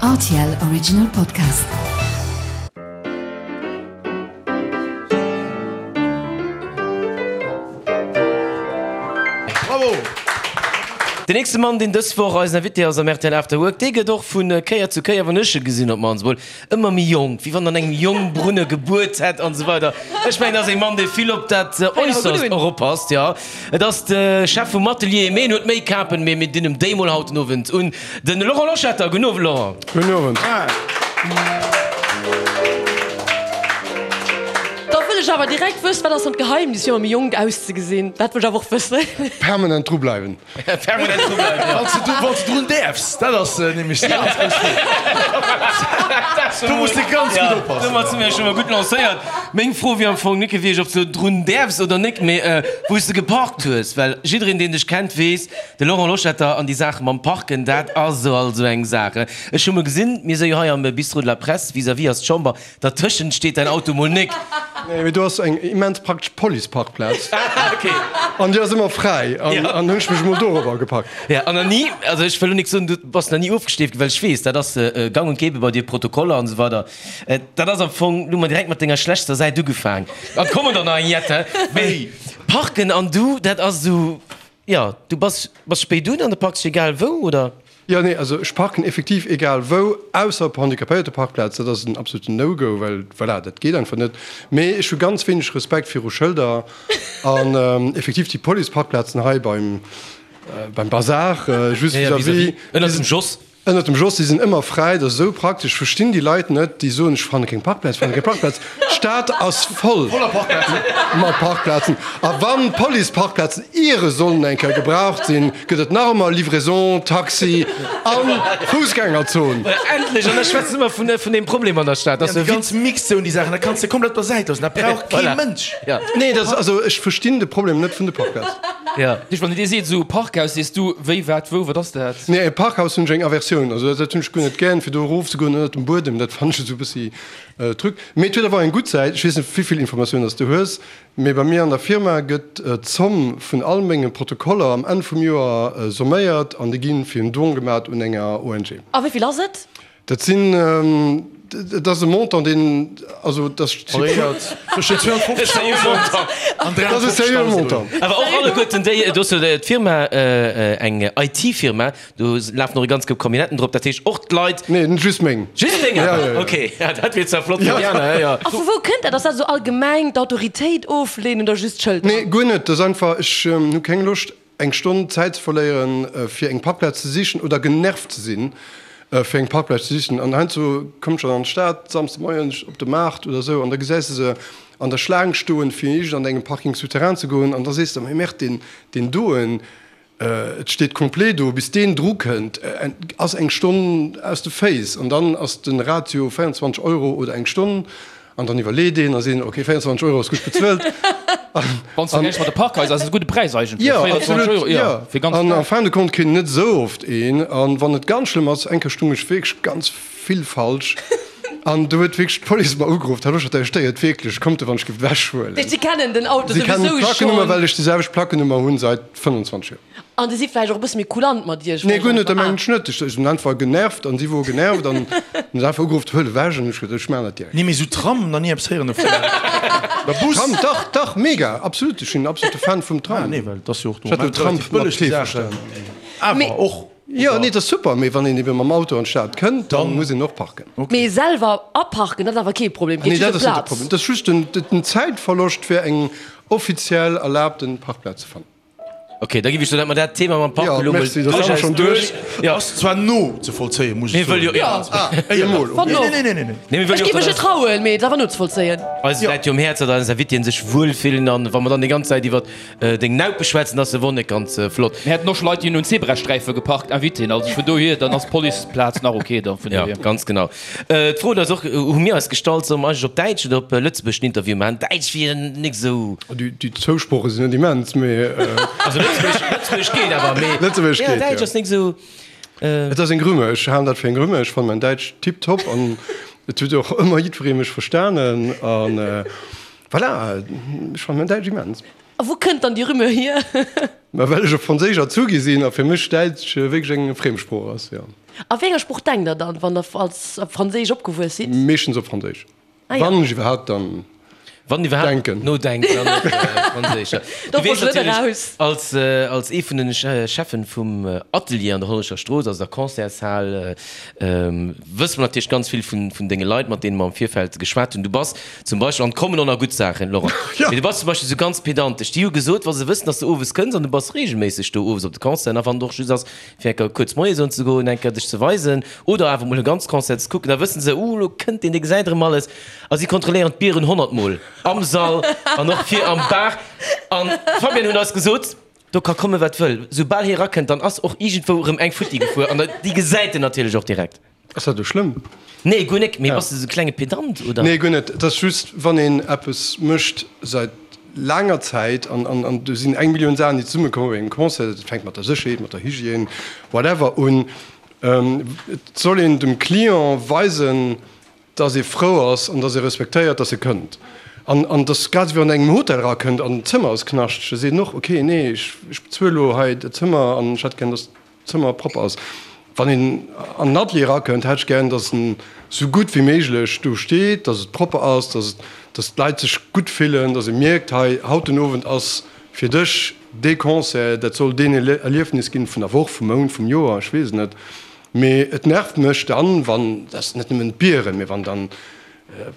Rtl Original Podcast. Bravo! Den nächste Mann, deen dës Woch eisen Invité ass am rtl After Work, dee gëtt och vu Kéier zu Kéier, wann ech e gesinn, op d'mannst emol, ëmmer méi jonk, wéi wann an engem Jongbrunne gebuert hätt an esou weider. Ech mengen, dat ass ee Mann, dee vill op dat Äusserst och oppasst, jo. Et ass de Chef vum Atelier, mee en huet méi Kapen, mee mir dinn em déi mol haut den Owend un, de Laurent Loschetter. Gudden Owend, Laurent. Gudden Owend. Da wëll ech awer direkt wëssen, wat ass dann d'Geheimnis fir ëmmer méi jonk auszegesinn? Dat wëll ech awer och wëssen. Permanent dru bleiwen. Permanent dru bleiwen, jo. Wann s de, wann s de drun däerfs, dat ass nämlech déi ganz grouss Fro. Do muss de ganz gutt oppassen. Domat si mir scho mol gutt lancéiert. Meng Fro wier am Fong nik gewiescht, ob s de drun däerfs oder nik, mee wou s de geparkt hues. Well jiddereen, deen dech kennt, weess, de Laurent Loschetter an déi Saache mam Parken, dat ass also eng Saach. Ech hu mol gesinn, mir si jo hei am Bistrot de la Presse, vis-à-vis ass d'Chamber, Dertëschent steet däin Auto mol nik. Nee, mee do ass eng immens praktesch Policeparkplaz. Ah, okay. An déi ass ëmmer fräi. An, an hunn ech mech emol dorobber gepackt. Ja, an nach ni, also ech wëll lo nik soen, du bass nach ni ofgesteeft ginn, well ech weess, dat ass gang und gäbe bei dir, Protokoller an esou weider. Dat ass am Fong, du hu mer direkt mat denger schlechtster Säit ugefaang. An et kommen der nach eng jette. Mee Parken an du, dat ass esou, jo, du bass, bass spéit un an du parks dech egal wou, oder? Jo, nee, also ech parken effektiv egal wou, ausser op Handicapéierteparkplaz, dat ass en absoluten No-Go, well voilà, dat geet einfach net. Mee ech hu ganz wéineg Respekt viru Schëlder an effektiv déi Policeparkplazen hei beim beim Bazar, just vis-à-vis, Ënnert dem Jos. Ënnert dem Jos, déi sinn ëmmer fräi, dat ass esou praktesch. Ech verstinn déi Leit net, déi soen, ech fanne keng Parkplaz, ech fanne keng Parkplaz. D'Stad ass voll mat Parkplazen. A wann d'Policeparkplazen iere sollen eng Kéier gebraucht sinn, gëtt et nach ëmmer Livraison, Taxi a Foussgängerzon. Endlech! An da schwätze mer vun deem Problem an der Stad. Dat ass déi ganz Mixzone, déi Saachen, dat kanns de komplett op der Säit loossen, dat brauch kee Mënsch. Nee, dat ass, also ech verstinn de Problem net vun de Parkplazen. Wann een dir seet, esou Parkhaus, sees du, wéi, wat, wou, wat ass dat? Nee, e Parkhaus hunn ech eng Aversioun. Also dat hunn ech guer net gären, fir do erofzegoen ënnert dem Buedem, dat fannen ech esou e bëssi Truc. Mee et huet awer eng gutt Säit, ech weess net wéivill Informatiounen dass du hues, mee bei mir an der Firma gëtt d'Zomm vun all menge Protokoller am Enn vum Joer somméiert an déi gi fir en Don gemat un enger ONG. A wéivill ass et? Dat sinn, et ass e Montant, deen, also dat ass. Variéiert tëschent 250.000 an Dat ass e seriöe 350.000 Montant. Awer och alleguerten déi, do ass jo d'Firma, eng IT-Firma, do lafen och e ganz Koup Camionnetten drop, dat heescht och d'Leit. Nee, just meng. Just deng awer? Ok, ja, dat wier zwar flott fir déi aner, jo. A vu wou kënnt dat? Ass dat esou allgemeng d'Autoritéit ofleenen oder just d'Schëlter? Nee, guer net. Dat ass einfach, ech hu keng Loscht, eng Stonn Zäit ze verléieren, fir eng Parkplaz ze sichen oder genervt ze sinn, fir eng Parkplaz ze sichen. An heiansdo kommt ech dann an d'Stad, Samsde Moien op de Maart oder esou, an da gesäis de se an der Schlaang stoen, fir iergend an engem Parking souterrain ze goen, an da sees de, Mee Merde, deen, deen doen, et steet complet do, bis deen dru kënnt, ass eng Stonn aus de Féiss. An dann ass de Ratio 24 Euro oder eng Stonn. An dann iwwerleet een a seet, ok, 24 Euro ass gutt bezuelt. Wann s de vergläichs mat de Parkhaiser, ass et e gudde Präis eigentlech, Jo, 24 absolut, Euro, jo, jo. fir ganz An Dag. en fin de compte kritt een net esou oft een. An wann et ganz schlëmm ass, eng Kéier stung ech wierklech ganz vill falsch an do huet wierklech d'Police mer ugeruff, Här Loschetter, Dir stéiert wierklech, kommt wann ech géif ewechhuelen. Si kennen den Auto Si kennen souwisou d'Plackenummer, schonn. well ech déi selwecht Plackenummer hunn seit 25 Joer. An déi si vläicht och e bësse méi kulant mat iech? Nee, guer net, dat mengen ech net. Ech sinn einfach genervt an si wor genervt an hunn se einfach ugeruff, huel ewech an ech gesot, ech maachen dat direkt. Nee, mee sou Tram, nach ni eppes héieren dovun. Oder Bus. Tram, dach, dach, mega, absolut, ech sinn absolute Fan vum Tram. Ah nee, well et ass jo och Ech hat den Tram relativ mat bëlleg, T déi Saachen. verstanen. Awer och. Jo, nee, dat ass super, mee wann een ebe mam Auto an d'Stad kënnt, da muss een och parken. Mee selwer aparken, dat ass awer kee Problem, Nee, geet dat just ëm ass net de Plaz. Problem. Dat ass just den Zäitverloscht, fir eng offiziell erlaabten Parkplaz ze fannen. Ok, da giff ech soen, dat mer dat Thema mam Park Jo, elo mol merci, dat ass duerchaus schon duerch. duerch. Jo. Ass zwar no ze vollzéien, muss ech Mir wëlle soen. jo, ja. Ah, emol, ok. Wann och. Nee, nee, nee, nee, nee. Nee, mir wëlle Ech jo giff och, mech net datt trauen, mee et ass awer nozevollzéien. eis läit jo um Häerz, datt eis Invitéen sech wuel fillen an wa mer dann déi ganz Zäit iwwert deng Naupe schwätzen, ass se wor net ganz flott. Mir hätten och scho Leit, déi hunn un Zebrasträife geparkt, Invitéen, also vun dohier, dann ass d'Policeplaz nach ok da vun Ja, dohier. ganz genau. D'Fro huet eis och, hu mir eis gestallt, solle mer eigentlech op Däitsch oder op Lëtzebuergesch den Interview maachen? Däitsch wier nik esou. Déi zwou Sprooche sinn net immens, mee. Also Lëtzebuergesch, Lëtzebuergesch geet awer, mee. Lëtzebuergesch geet, jo. Däitsch ass nik esou. Et ass eng Rumeur, ech halen dat fir eng Rumeur. Ech fannen mäin Däitsch tiptop an et huet och ëmmer jiddweree mech verstanen an voilà, ech fannen mäin Däitsch immens. A wou kënnt dann déi Rumeur hier? Ma well ech op Franséisch erzu gi sinn a fir mech Däitsch wierklech eng Friemsprooch ass, jo. A wéi enger Sprooch denkt der dann, wann der als op Franséisch opgewuess sidd? Meeschtens op Franséisch. Ah ja. Wann ech iwwerhaapt dann Wann iwwerhaapt denken. Nodenkt, dann op Franséisch. Ja. Do Du weess wollt ech net natierlech, eraus. als, als ee vun den Cheffen vum Atelier an der Hollerecher Strooss, also der Concertshal, wësse mer natierlech ganz vill vun, vun denge Leit, mat deene mer am Virfeld geschwat hunn. Du bass zum Beispill, an et kommen och nach gutt Saachen, Laurent, Ja. mee du bass zum Beispill esou ganz pedantesch. Déi hu gesot, wa se wëssen, dass du owes kënns, an du bass reegelméisseg do owes op de Concerten, a wann et och just ass, fir eng Kéier kuerz Moie soen ze goen, eng Kéier dech ze weisen oder awer mol e ganz Concert ze kucken, da wëssen se, uh, lo kënnt deen, dee gesäit erëm alles. A si kontrolléieren d'Bieren honnertmol am Sall an och vir am Bar. An d'Fabienne huet eis gesot, do ka komme wat wëll, soubal hie rakënnt, dann ass och iergendwou erëm eng futti gefuer an déi gesäit en natierlech och direkt. Ass dat elo schlëmm? Nee, guer nek. Mee bass de sou klenge Pedant, oder? Nee, guer net. Et ass just, wann een eppes mécht säit laanger Zäit an, an, an do sinn eng Millioun Saachen, déi zesummekommen bei engem Concert, dat fänkt mat der Sécherheet, mat der Hygiène, whatever un. Et soll een dem Client weisen, dass ee frou ass an dass ee respektéiert, dass e kënnt. An, an dass grad esou wéi wann een engem Hotel erakënnt an d'Zëmmer ass knaschteg, da seet en och, okay, nee, ech, ech bezuel elo hei dat Zëmmer an ech hätt gär, dass Zëmmer propper ass. Wann een an den Atelier erakënnt, hätt ech gären, dass en sou gutt wéi méiglech do steet, dass et propper ass, dass et, dass d'Leit sech gutt fillen, dass ee mierkt, hei, haut den Owend ass fir dech dee Concert, dat soll deen Erliefnis ginn vun der Woch, vum Mount, vum Joer, ech weess et net. Mee et nervt mech dann, wann, dat ass net nëmmen d'Bieren, mee wann dann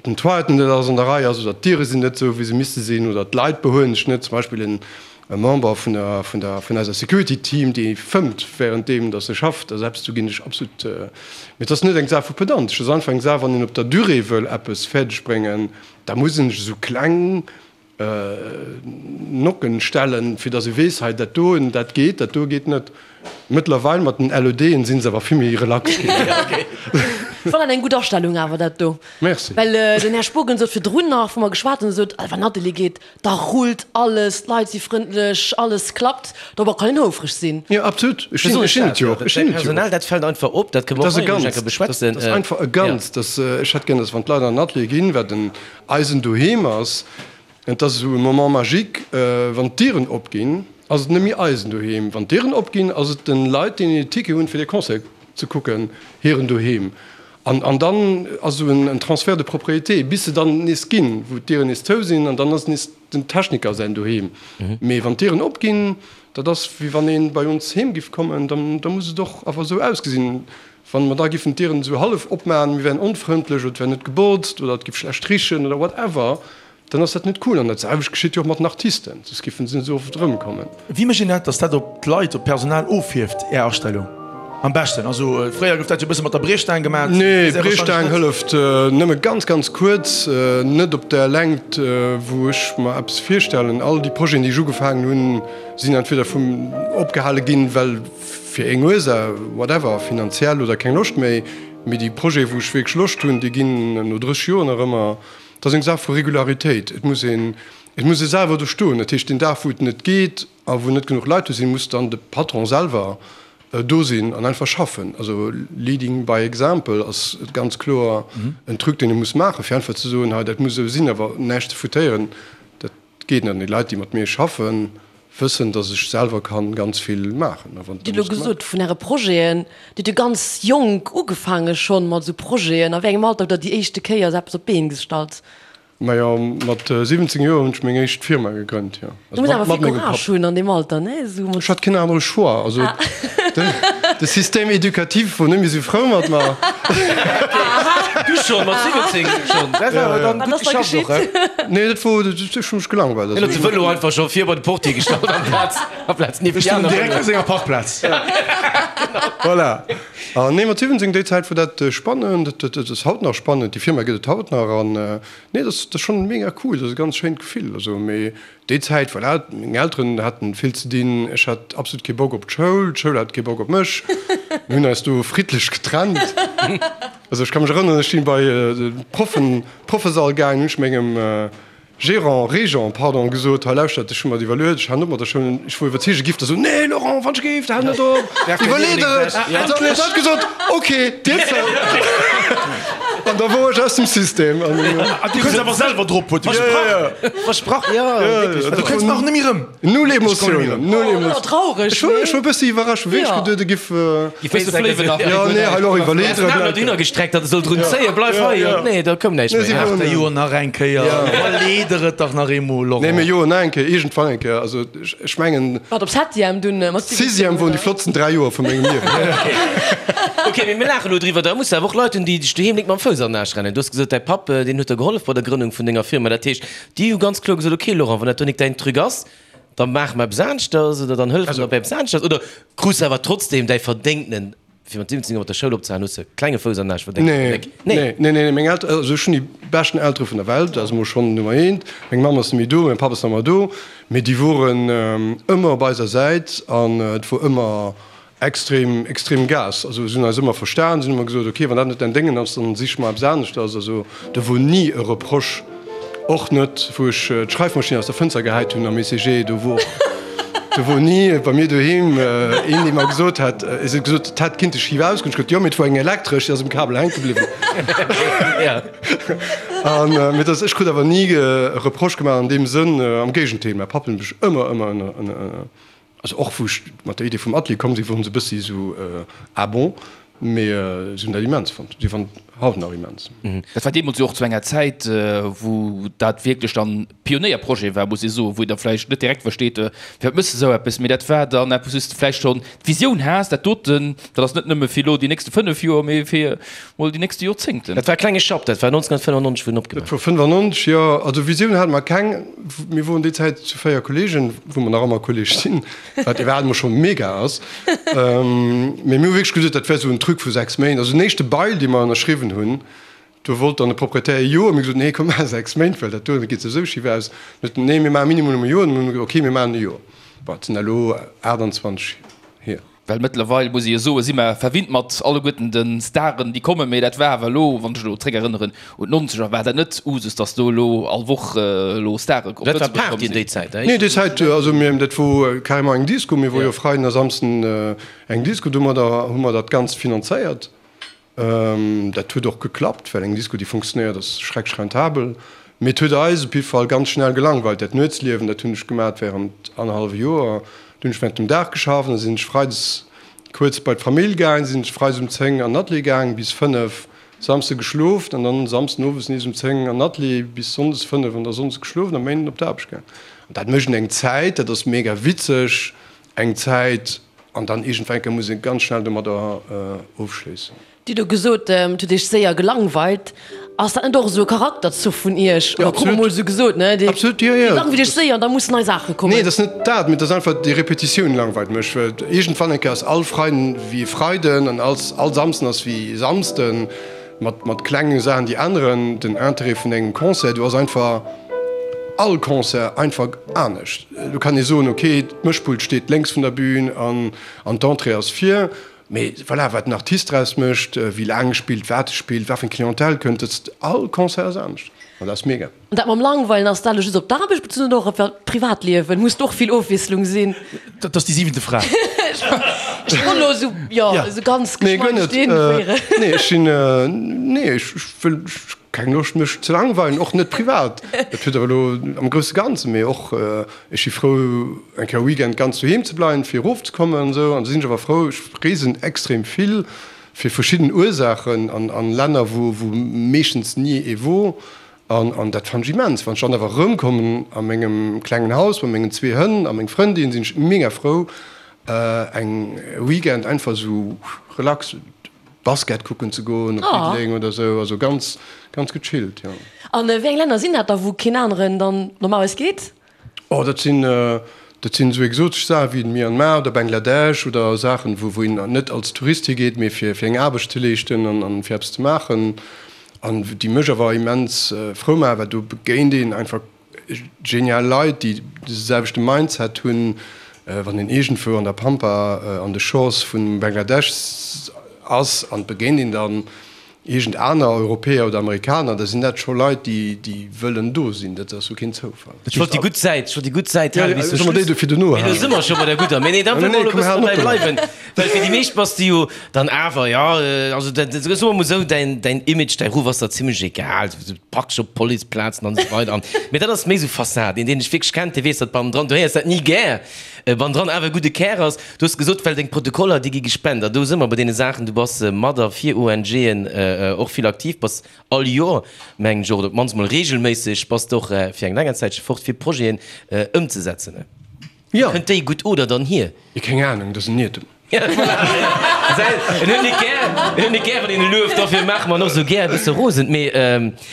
den Toiletten net alles an der Rei ass oder d'Diere sinn net esou wéi se misste sinn oder d'Leit behuelen sech net, zum Beispill en Member vun der vun der vun eiser Security Team dee fëmmt während deem datt e schafft, also eppes do ginn ech absolut, mee et ass net eng Saach vu Pedantesch, et ass einfach eng Saach wann een op der Durée wëll eppes fäerdeg bréngen, da muss een sech esou kleng Nocken stellen, fir datt ee weess, hei dat doen, dat geet, dat do geet net. Mëttlerweil mat den LEDen sinn se awer vill méi relax ginn. Fannen eng gutt Astellung awer dat do. Merci. Well den Här Spogen sot virdrun nach, wou mer geschwat hunn, sot, wann Atelier geet, da rullt alles, d'Leit si frëndlech, alles klappt. Dorobber kann een houfreg sinn. Jo, absolut. Ech sinn, ech sinn et jo och. Ech sinn et jo och. Personal, dat fält einfach op. Dat kënne mer Dat ass och e hei eng Ganzt. Kéier beschwätzen. Dat ass einfach e Ganzt. Dat, ech hätt gär, datt wann d'Leit an den Atelier ginn, wat en eisen Doheem ass, et ass esou e Moment magique, wann d'Dieren opginn, ass et net méi eisen Doheem. Wann d'Dieren opginn, ass et de Leit, déi en Ticket hunn, fir de Concert ze kucken, hiren Doheem. An, an dann ass esou en Transfert de propriété, bis se dann nees ginn, wou d'Dieren nees zou sinn, an dann ass nees den Techniker säin Doheem. Mee wann d'Dieren opginn, dat ass wéi wann ee bei ons heem giff kommen, dann, da muss et och awer esou ausgesinn. Wann mer da giffen d'Dieren esou hallef opmaachen, mir wären onfrëndlech oder et wär net gebotzt oder et giff schlecht richen oder whatever, dann ass dat net cool. An dat selwecht geschitt jo och mat den Artisten, soss giffen se net esou oft erëmkommen. Wéi mécht een dat, dass dat op d'Leit, op d'Personal ofhierft, Är Astellung am beschten? Also fréier gouf dat jo e bësse mat der Briechstaang gemaat. Nee, d'Briechstaang hëlleft nëmme ganz, ganz kuerz, net op där Längt, wou ech mer eppes virstellen. All déi Projeten, déi ech ugefaangen hunn, sinn entweder vum opgehale ginn, well fir eng Ursaach, whatever, finanziell oder keng Loscht méi, mee déi Projeten, wou ech wierklech Loscht hunn, déi ginn no 30 Joer nach ëmmer. Et ass eng Saach vu Regularitéit. Et muss een, et muss ee selwer do stoen. Dat heescht, deen Dag, wou et net geet a wou net genuch Leit do sinn, muss dann de Patron selwer do sinn an einfach schaffen. Also leading by example ass ganz kloer en Truc, deen ee muss maachen, fir einfach ze soen, hei dat muss esou sinn, awer näischt ze foutéieren, dat geet net. An déi Leit, déi mat mir schaffen, wëssen, dass ech selwer kann ganz vill maachen. A wann Dir hutt elo gesot vun Äre Projeten, Dir hutt jo ganz jonk ugefaange schonn mat esou Projeten. A wéi engem Alter hutt Der déi éischte Kéier esou eppes op d'Been gestallt? Majo, mat 17 Joer hunn ech meng éischt Firma gegrënnt, jo. Du muss awer vill Courage hunn an deem Alter, ne? Esou mat. Ech hat keen anere Choix. Also de Système éducatif wor net méi esou frou mat mer. Du schonn, mat 17 schonn? Dat war awer dann gutt geschafft och, he? Nee, dat wor, ech hu mech gelangweilt. Hien huet de Vëlo einfach scho vir bei de Portier gestallt amplaz, amplaz nieft Ech déi stoung aner direkt Vëloen. op senger Parkplaz. Voilà. An nee, mat 17, déi Zäit wor dat spannend, dat ass haut nach spannend, déi Firma gëtt et haut nach an nee, dat ass schonn mega cool, dat ass e ganz schéint Gefill. Also, mee déi Zäit, voilà, meng Elteren haten vill ze dinn, ech hat absolut kee Bock op d'Schoul, d'Schoul hat kee Bock op mech, mir hunn eis do friddlech getrennt. Also ech ka mech erënneren, ech sinn bei de Proffen, Proffesall gaangen, hunn ech mengem Gérant, Régent, pardon, gesot, hei lauschtert, ech hu mer et iwwerluet, ech halen op mat der Schoul. Ech wor iwwerzeege giff der soen, nee Laurent, wann ech géif, hal net op, iwwerlee der et. An dann huet hatt gesot, ok, Dir zou. An da wor ech aus dem System. An du kënns awer selwer drop, huet e gesot. Versprach, jo, wierklech. Du kënns nach net méi rëm. Null Emotiounen, null Emotiounen. Traureg, Ech wor, ech wor e bëssi iwwerrascht, hu wierklech geduet, e giff. Giff bësse fléiwen nach. Jo, nee, hei elo iwwerleet Er ass dohinner gestreckt, datt e soll drun zéien, bleif hei. Nee, da koum näischt méi. Ach, der jo nach eng Kéier, iwwerlee der et dach nach eemol, Laurent. Nee, mee jo, nach eng Kéier, iergendwann eng Kéier. Also, ech mengen. Wat, op Septième dunn mat 17? Sixième woren déi flottsten 3 Joer vu mengem Liewen. Ok, mee mir laachen elo driwwer. Da muss de awer och Leit hunn, déi dech doheem nik mam Fouss an den Aarsch rennen. Du hues gesot, däi Papp, deen huet der gehollef bei der Grënnung vun denger Firma. Dat heescht, Déi hu ganz kloer gesot, ok Laurent, wann dat do nik däin Truc ass, da maache mer eppes aneschters oder dann hëllefe mer bei eppes aneschters. Oder krus de awer trotzdem däi verdéngtenen, fir mat 17 Joer mat der Schoul opzehalen, hues de e klenge Fouss an den Aarsch verdéngt? Nee, nee, nee, nee, meng Elteren, also ech hunn déi beschten Eltere vun der Welt, dat ass emol schonn Nummer eent. Meng Mamm ass net méi do, mäin Papp ass nach ëmmer do, mee déi woren ëmmer op eiser Säit an et wor ëmmer Extrem, extrem Gas. Also si hunn eis ëmmer verstan, si hunn ëmmer gesot, ok, wann dat net däin Déngen ass, dann sich mer eppes aneschters. Also do wor ni e Reproche, och net wou ech d'Schreifmaschinn aus der Fënster gehäit hunn am ECG, do wor, do wor ni bei mir doheem een, dee mer gesot hätt, si huet gesot, et hätt kinnte schif ausgoen. Ech gesot, jo, mee et wor eng elektresch, déi ass um Kabel hänke bliwwen. An mee dass, ech krut awer ni e Reproche gemaach an deem Sënn, am Géigendeel, mäi Papp huet mech ëmmer, ëmmer ënner, Also och wou ech mat der Idee vum Atelier komm sinn, woren se e bëssi esou ah bon, mee si hunn dat immens fonnt. Si fannen et haut nach immens. Dat war deemools jo och zu enger Zäit, wou dat wierklech dann Pionéierprojet war, muss ee soen, wou een da vläicht net direkt versteet, firwat méchs de esou eppes, mee dat war dann eppes, wou s de vläicht schonn d'Visioun has, dat doten, dat ass net nëmme fir elo déi nächste 5 Joer, mee fir mol déi nächste Joerzéngten. Dat war e klenge Schapp, dat war 1995, wou en opgemaach. Dat wor 95, jo. Also Visioun hate mer keng. Mir woren déi Zäit zu 4 Kollegen, wou mer nach ëmmer Kolleg sinn, wat iwwerhaapt emol scho mega ass. Mee mir hu wierklech gesot, dat wär esou en Truc vu 6 Méint. Also den éischte Bail, dee mer ënnerschriwwen hunn, do wollt dann de Proprietär e Joer. Mir hu gesot, nee, komm, maache 6 Méint, well dat do, dat geet souwisou schif aus. Dann huet en, nee, mir maache minimum e Joer. Dann hu mir gesot, okay, mir maachen e Joer. Bon, et sinn elo 28 hier. Well mëttlerweil, muss ee jo soen, si mer verwinnt mat alleguerten de Staren, déi kommen. Mee dat war awer elo, wann ech elo zréckerënneren un d'Nonzeger, war dat net Usus, datt do elo all Woch elo Stare op Dat war Lëtzebuerg komm Party sinn. déi Zäit, Nee, déi Zäit, also mir, dat wor carrément eng Disco. Mir wor jo Freiden a Samsden eng Disco. Domadder hu mer dat Ganzt finanzéiert. Dat huet och geklappt, well eng Disco, déi funktionéiert, ass schrecklech rentabel. Mee et huet eis op jidde Fall ganz schnell gelangweilt. Dat Nuetsliewen, dat hunn ech gemat während annerhallwe Joer. Do hunn ech während dem Dag geschafft, da sinn ech freides kuerz bei d'Famill gaang, sinn ech freides um 10 an den Atelier gaang bis 5, Samsde geschlof an dann Samsden owes nees um 10 an den Atelier bis sonndes 5 an da sonndes geschlof an am Méinden op d'Aarbecht gaang. An dat mécht een eng Zäit, dat ass mega witzeg. Eng Zäit, an dann iergendwann eng Kéier muss ee ganz schnell domadder ofschléissen. Dir hutt elo gesot, et huet Iech séier gelangweilt. Ass dat net och esou e Charakterzuch vun Iech? Oder krut mer mol esou gesot, ne? Dir Absolut, jo, jo. langweilt Iech séier an da mussen nei Saache kommen. Nee, et ass net dat, mee et ass einfach déi Repetitioun langweilt mech. Well iergendwann eng Kéier ass all Freiden wéi e Freiden an all Samsden ass wéi e Samsden. Mat, mat klenge Saachen, déi änneren den Interêt vun engem Concert. Do ass einfach all Concert einfach anescht. Do kann ee soen, okay, d'Mëschpult steet lénks vun der Bühn an, an d'Entrée ass vir. Mee voilà, wat den Artist draus mécht, wéi laang e spillt, wat e spillt, wat fir eng Clientèle kënnt, dat ass, all Concert ass anescht an dat ass mega. An dat mam Langweilen, ass dat elo just op d'Aarbecht bezunn oder och op dat Privatliewen? Muss do och vill Ofwiesslung sinn? Dat ass déi siwente Fra. Ech wollt elo esou, jo, esou ganz Nee, guer geschmeidig net. deen féieren. Nee, ech sinn, nee, ech wëll, ech keng Loscht mech ze langweilen, och net privat. Dat huet awer elo am grousse Ganzen, mee och, ech si frou eng Kéier e Weekend ganz doheem ze bleiwen, fir erofzekommen an esou. An da sinn ech awer frou, ech reesen extrem vill fir verschidden Ursaachen an an Länner, wou wou meeschtens ni ee wor. An an dat fannen ech immens. Wann ech dann awer erëmkommen a mengem klengen Haus mat mengen zwee Hënn a meng Frëndin, sinn ech mega frou eng Weekend einfach esou relax Basket kucken ze goen op Diddeleng oder esou. Also ganz ganz gechillt, jo. An wéi eng Länner sinn dat da wou keen aneren dann normalerweis geet? Oh, dat sinn, dat sinn esou exotesch Saachen wéi Myanmar oder Bangladesch oder Saachen, wou, wou een net als Tourist higeet, mee fir, fir eng Aarbecht ze leeschten an, an fir eppes ze maachen. An déi mech awer immens frou maachen, well do begéint een einfach genial Leit, déi de selwechte Mindset hunn. Wann een iergendwou an der Pampa an de Shores vun Bangladesch ass an et begéint een dann. Iergend aner Europäer oder Amerikaner, da sinn dat scho Leit, déi, déi wëllen do sinn. Dat ass jo keen Zoufall. Ech wollt déi gutt Säit, ech wollt déi gutt Säit halen bis zum Solle mer déi Schluss. dofir dono Mee lo halen? si mer scho bei der gudder. Mee nee, da Nee, wëlle mer nee, elo e komm, bëssen halen dobäi op domat. bleiwen. Well fir déi meescht bass de jo dann awer, jo, also dat, soe mer mol esou, däin, däin Image, däi Ruff ass der zimlech egal. Du praktesch op Policeplazen an esou weider. An, mee dat ass méi esou Fassad. Een, deen dech wierklech kennt, dee weess, datt bannendran, du héiers dat ni gär, bannendran awer e gudde Kär ass. Du hues gesot, well deng Protokoller, déi gi gespent. A do si mer bei deene Saachen, du bass mat a fir ONGen och vill aktiv, bass all Joer, mengen ech, oder op d'mannst mol reegelméisseg, bass de och fir eng länger Zäitche fort, fir Projeten ëmzesetzen. Jo. Kënnt déi gutt oder dann hier? Keng Anung, dat ass en Iertum. En huet net gär, en huet net gär, wann een e lueft, dofir maache mer en och esou gär e bësse rosen. Mee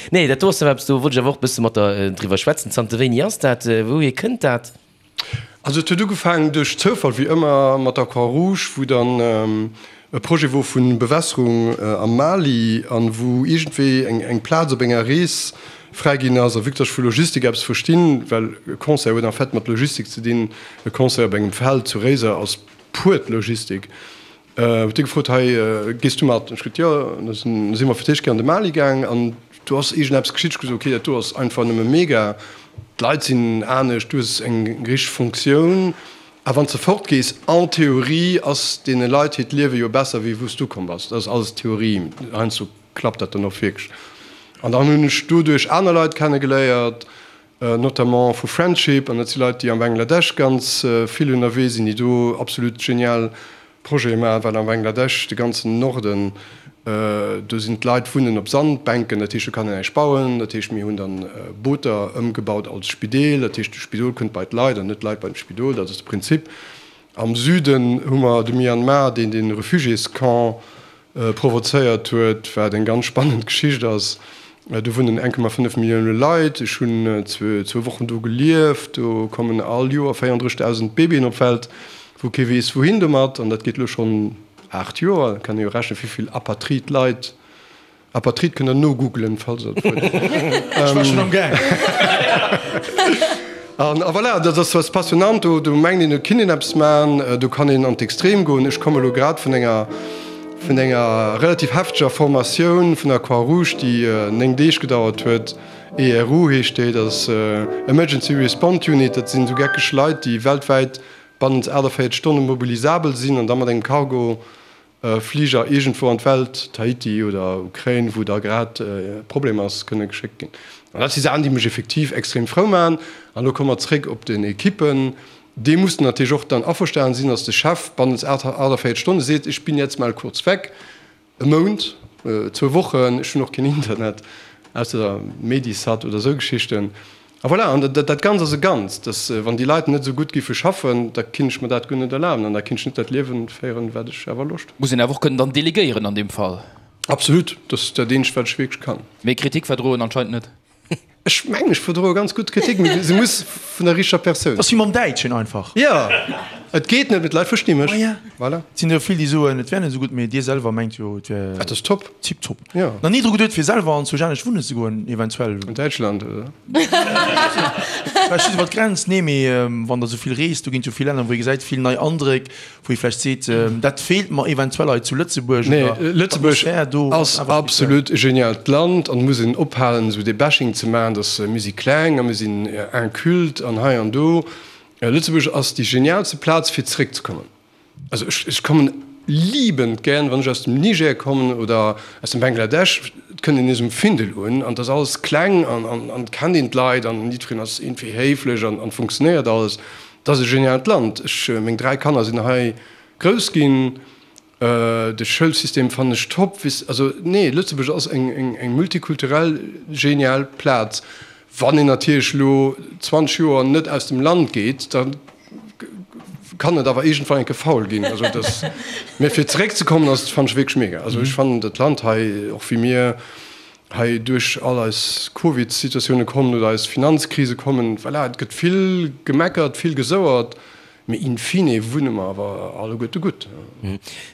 nee, dat do ass awer eppes, do wollt ech awer och e bësse mat der driwwer schwätzen. Zanter wéini ass dat? Wouhier kënnt dat? Also et huet ugefaangen duerch Zoufall, wéi ëmmer, mat der Croix Rouge, wou dann e Projet wor vu Bewässerung am Mali an wou iergendwéi eng Plaz op enger Rees fräi ginn ass. A vue que dass ech vu Logistik eppes verstinn, well e Concert huet en fait mat Logistik ze dinn, e Concert op engem Feld zu Réiser ass puert Logistik, Huet hie gefrot, Hei, gees du mat? Ech gesot, Jo. An da si mer fir d'éischt Kéier an de Mali gaang an do ass iergendeppes geschitt. Ech gesot, Okay, dat do ass einfach nëmme mega. D'Leit sinn anescht, du hues eng richteg Funktioun. A wann s de fortgees, en théorie ass deene Leit hiert Liewe jo besser, wéi wou s du komm bass. Dat ass alles Theorie, heiansdo klappt dat dann och wierklech. An dann hunn ech doduerch aner Leit kennegeléiert, notamment vu Friendship, an dat si Leit, déi am Bangladesch ganz vill ënnerwee sinn, déi do absolut genial Projete maachen, well am Bangladesch, de ganzen Norden, do sinn d'Leit wunnen op Sandbänken, dat heescht, do kann een näischt bauen, dat heescht, mir hunn dann Booter ëmgebaut als Spideel, dat heescht, de Spidol kënnt bei d'Leit an net d'Leit bei de Spidol, dat ass de Prinzip. Am Süden hu mer de Myanmar, deen de Refugiéscamp provozéiert huet, wat eng ganz spannend Geschicht ass. Do wunnen 1,5 Millioune Leit. Ech hunn zwou Wochen do gelieft. Do kommen all Joer 34.000 Babyen op d'Welt, wou kee weess wouhin domat. An dat geet elo schonn 8 Joer. Da kann ee jo rechnen, wéi vill Apatrid Leit, Apatrid kënnt der nogoogelen, falls der dat wëllt. Ech war schonn am Gaang. An a voilà, dat ass was passionnant, do do mengt een, do kinnt een eppes maachen, do kann een an d'Extrem goen. Ech komme lo grad vun enger vun enger relativ hefteger Formatioun vun der Croix-Rouge, déi 9 Deeg gedauert huet. ERU heescht déi, dat ass Emergency Response Unit, dat sinn esou geckeg Leit, déi weltwäit bannent 48 Stonne mobilisabel sinn an da mat engem Cargo Fliger iergendwou an d'Welt, Tahiti oder Ukrain, wou da grad e Problem ass, kënne geschéckt ginn. An dat si Saachen, déi mech effektiv extrem frou maachen. An elo komme mer zréck op den Ekippen. Déi mussen natierlech och dann averstanen sinn, dass de Chef bannent 48 Stonne seet, ich bin jetzt mal kurz weg, e Mount, zwou Wochen, ech hunn och keen Internet, ausser Medisat oder esou Geschichten. A voilà, an dat Ganzt ass e Ganzt, dass wann déi Leit net esou gutt giffe schaffen, da kinnt ech mer dat guer net erlaben an da kinnt ech net dat Liewen féieren, wat ech awer Loscht hunn. Muss een awer och kënnen dann delegéieren an deem Fall. Absolut, dat ass dat eenzegt, wat ech wierklech kann. Mee Kritik verdroen anscheinend net. Ech mengen, ech verdroe ganz gutt Kritik, mee se muss vun der richteger Persoun. Dat ass wéi mam Däitschen einfach. Jo, et geet net, mee d'Leit versti mech. Voilà. Et sinn der jo vill, déi soen, et wär net esou gutt, mee Dir selwer mengt jo, et wär. Et ass top. Tiptop. Jo. Nach ni dru geduet fir selwer an zu anescht wunnen ze goen eventuell? An Däitschland oder? Vläicht just iwwer d'Grenz, nee mee wann der sou vill reest, do ginn et jo vill Länner wou ee gesäit, vill nei Andréck, wou ee vläicht seet, dat feelt mer eventuell hei zu Lëtzebuerg Nee, oder Lëtzebuerg d'Atmosphär do ass awer speziell. absolut e genialt Land an et muss een ophalen esou dee Bashing ze maachen, dass mir si kleng a mir sinn inculte an hei an do. Lëtzebuerg ass déi genialste Plaz fir zeréckzekommen. Also ech, ech kommen liebend gären, wann ech aus dem Niger kommen oder aus dem Bangladesch, et kënnt een nees um Findel un an et ass alles kleng an, an, an et kennt een d'Leit an jiddwereen ass iergendwéi héiflech an, an funktionéiert alles. Et ass e geniaalt Land. Ech, meng 3 Kanner sinn hei grouss ginn. De Schoulsystem fannen ech top. Weess, also nee, Lëtzebuerg ass eng, eng, eng multikulturell genial Plaz. Wann een natierlech elo 20 Joer net aus dem Land geet, da kann et awer iergendwann eng Kéier faul ginn. Also dass, mä fir zeréckzekommen ass, fannen ech wierklech mega. Also ech fannen dat Land hei, och wéi mir hei duerch all eis Covid-Situatioune kommen oder eis Finanzkrise kommen, voilà, et gëtt vill gemeckert, vill gesouert. Mee in fine wunne mer awer alleguerte gutt.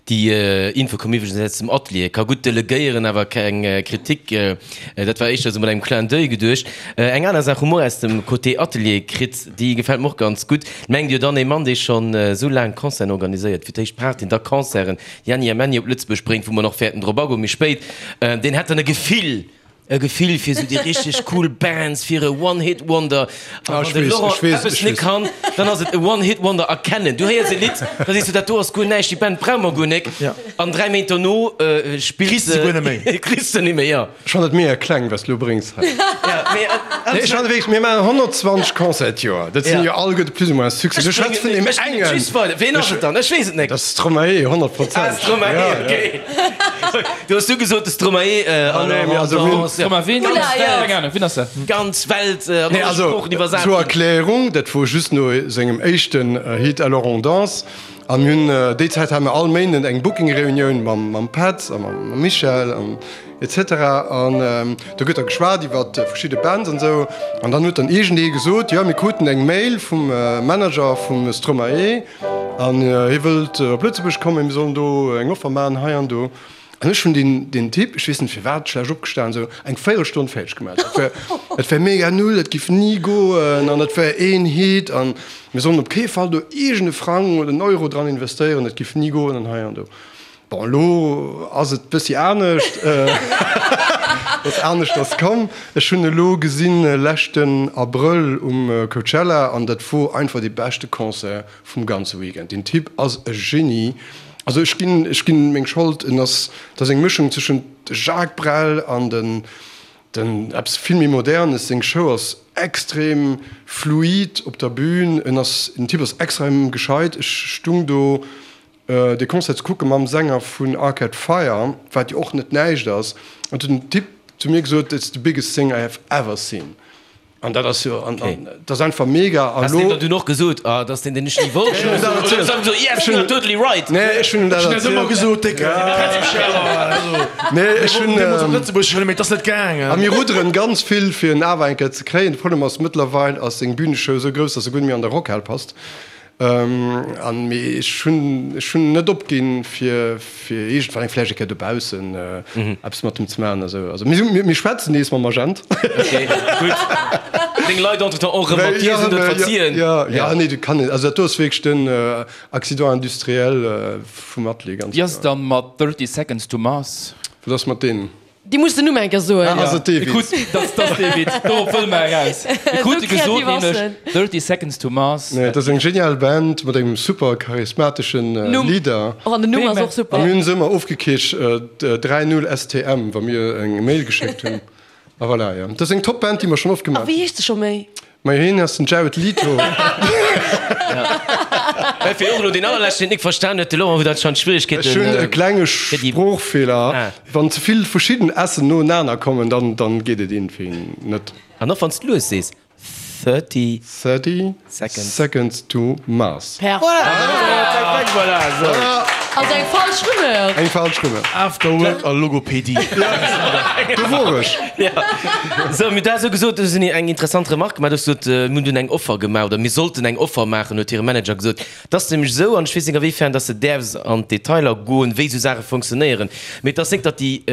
Déi Info koum iwwregens aus dem Atelier. Ka gutt delegéieren, awer keng Kritik. Dat war éischter esou mat engem Clin d'oeil geduecht. Eng aner Saach hu mer och aus dem Côté Atelier kritt, déi gefält mer och ganz gutt. Mengt Dir dann, ee Mann, dee schonn esou laang Concerten organiséiert, fir d'éischt Partyen, da Concerten, Jänni a Männi op Lëtzebuerg bréngt, wou mer nach wäerten drop agoen méi spéit, deen hätt dann e Gefill, E Gefill fir sou déi richteg cool Bands, fir e One-Hit-Wonder. A wann de Laurent eppes net kann, dann ass et e One-Hit-Wonder erkennen. Du héiers e Lidd, da sees du, dat do ass guer näischt, déi Band brauche mer guer nek. An 3 Méint dono spills se guer net méi. Kriss de net méi, jo. Ech fannen et mega kleng, wat s du elo bréngs hei. Nee, ech fannen wierklech, mir maachen 120 Concerten d'Joer, dat sinn jo alleguerte plus ou moins Succès. Du schwätz vun deem Ech bréngen et engen. just weider. Ween ass et dann? Ech weess et nek. Dat ass Stromae, 100 Prozent. Ah, Stromae, okay. Du hues du gesot de Stromae Ganz Welt an alle Sproochen iwwersat Zur Erklärung, dat wor just no sengem éischten Hit Alors on danse an mir hunn déi Zäit hate mer all Méinden eng Booking-Reunioun mam Petz a mam Michel an etc. An do gëtt da geschwat iwwer verschidde Bands an esou an dann huet dann iergendee gesot, jo mir kruten eng Mail vum Manager vum Stromae an hie wëllt op Lëtzebuerg kommen, mir sollen do eng Offer maachen hei an do. An ech hunn deen, deen Typ, ech weess net firwat, schlecht opgestan, esou eng Véierelstonn fäerdeg gemaach. Dat wär, dat wär mega null, dat giff ni goen an dat wär een Hit an mir sollen op kee Fall do iergend e Frang oder en Euro dran investéieren, dat giff ni goen an hei an do. Bon, elo ass et bëssi anescht, et ass aneschters komm. Ech hunn elo gesinn leschten Abrëll um Coachella an dat wor einfach dee beschte Concert vum ganze Weekend. Deen Typ ass e Genie. Also ech ginn, ech ginn meng Schold, en ass, dat ass eng Mëschung tëschent Jacques Brel an den, den eppes vill méi Modernes. Seng Show ass extrem fluid op der Bühn. En ass, den Typ ass extrem gescheit. Ech stung do dee Concert ze kucke mam Sänger vun Arcade Fire, wat jo och net näischt ass, an huet den Typ zu mir gesot, It's the biggest thing I have ever seen. An dat ass jo, an dat ass einfach mega. An lo. Has de der dunn och gesot, ah, dat ass deen, deen ech ni wollt? Ech hunn dat erzielt. Oder yes, you are totally right. Nee, ech hunn him dat erzielt. Ech hunn dat ëmmer gesot, Décke. Nee, ech hunn. Deemools op Lëtzebuerg huelen, mee et ass net gaangen. A mir rudderen ganz vill, fir en awer eng Kéier ze kréien. De Problem ass, mëttlerweil ass seng Büneshow esou grouss, dass e guer net méi an der Rockhal passt. An mee ech hunn, ech hunn net opginn, fir, fir iergendwann eng vläicht eng Kéier dobaussen eppes mat em ze maachen a sou. Also mir, mir schwätzen nees mam Agent. Ok, gutt. Deng Leit entretemps och erëm mat dir sinn do verziehen. Jo, jo, nee, du kann net. Also dat do ass wierklech den Accident industriel vum Atelier, ganz Wéi ass et kloer. dann mat 30 Seconds to Mars? Wat ass mat deenen? Déi muss den Numm eng Kéier soen. Ah, ass et dee Mir Witz? kruten, dat ass dee Witz, dorop wëlle mer eraus. Mir krute gesot nämlech 30 Seconds to Mars. Nee, dat ass eng genial Band mat engem super charismateschen Leader. Och an den Numm ass och super. A mir hunn se ëmmer ofgekiercht 3 0 STM, wa mir eng Mail geschéckt hunn. A voilà, jo. Dat ass eng top Band, déi mer schonn oft A gemaach wéi heescht se scho méi? Majo hien ass den Jared Leto. Well fir och elo deen allerleschten deen et nik verstan huet, de Laurent huet anscheinend Schwieregkeeten. Ech hunn e klenge Sproochfeeler, wann ze vill verschidden S'en noenaner kommen, dann dann geet et iergendwéi net. An och wann s de lues sees, 30 30 Seconds. Seconds to Mars. Perfekt. Perfekt, voilà, esou. Also eng falsch Rumeur. Eng falsch Rumeur. Afterwork a Logopädie. Do wor ech. Sou, mir hunn dat esou gesot, du hues eng interessant Remarque gemaach, du hues gesot, mir hunn dunn eng Offer gemaach oder mir sollten eng Offer maachen, huet hire Manager gesot. Et ass nämlech esou, an ech weess net a wéi fern dass de däerfs an d'Detailer goen, wéi esou Saache funktionéieren, mee et ass net, datt déi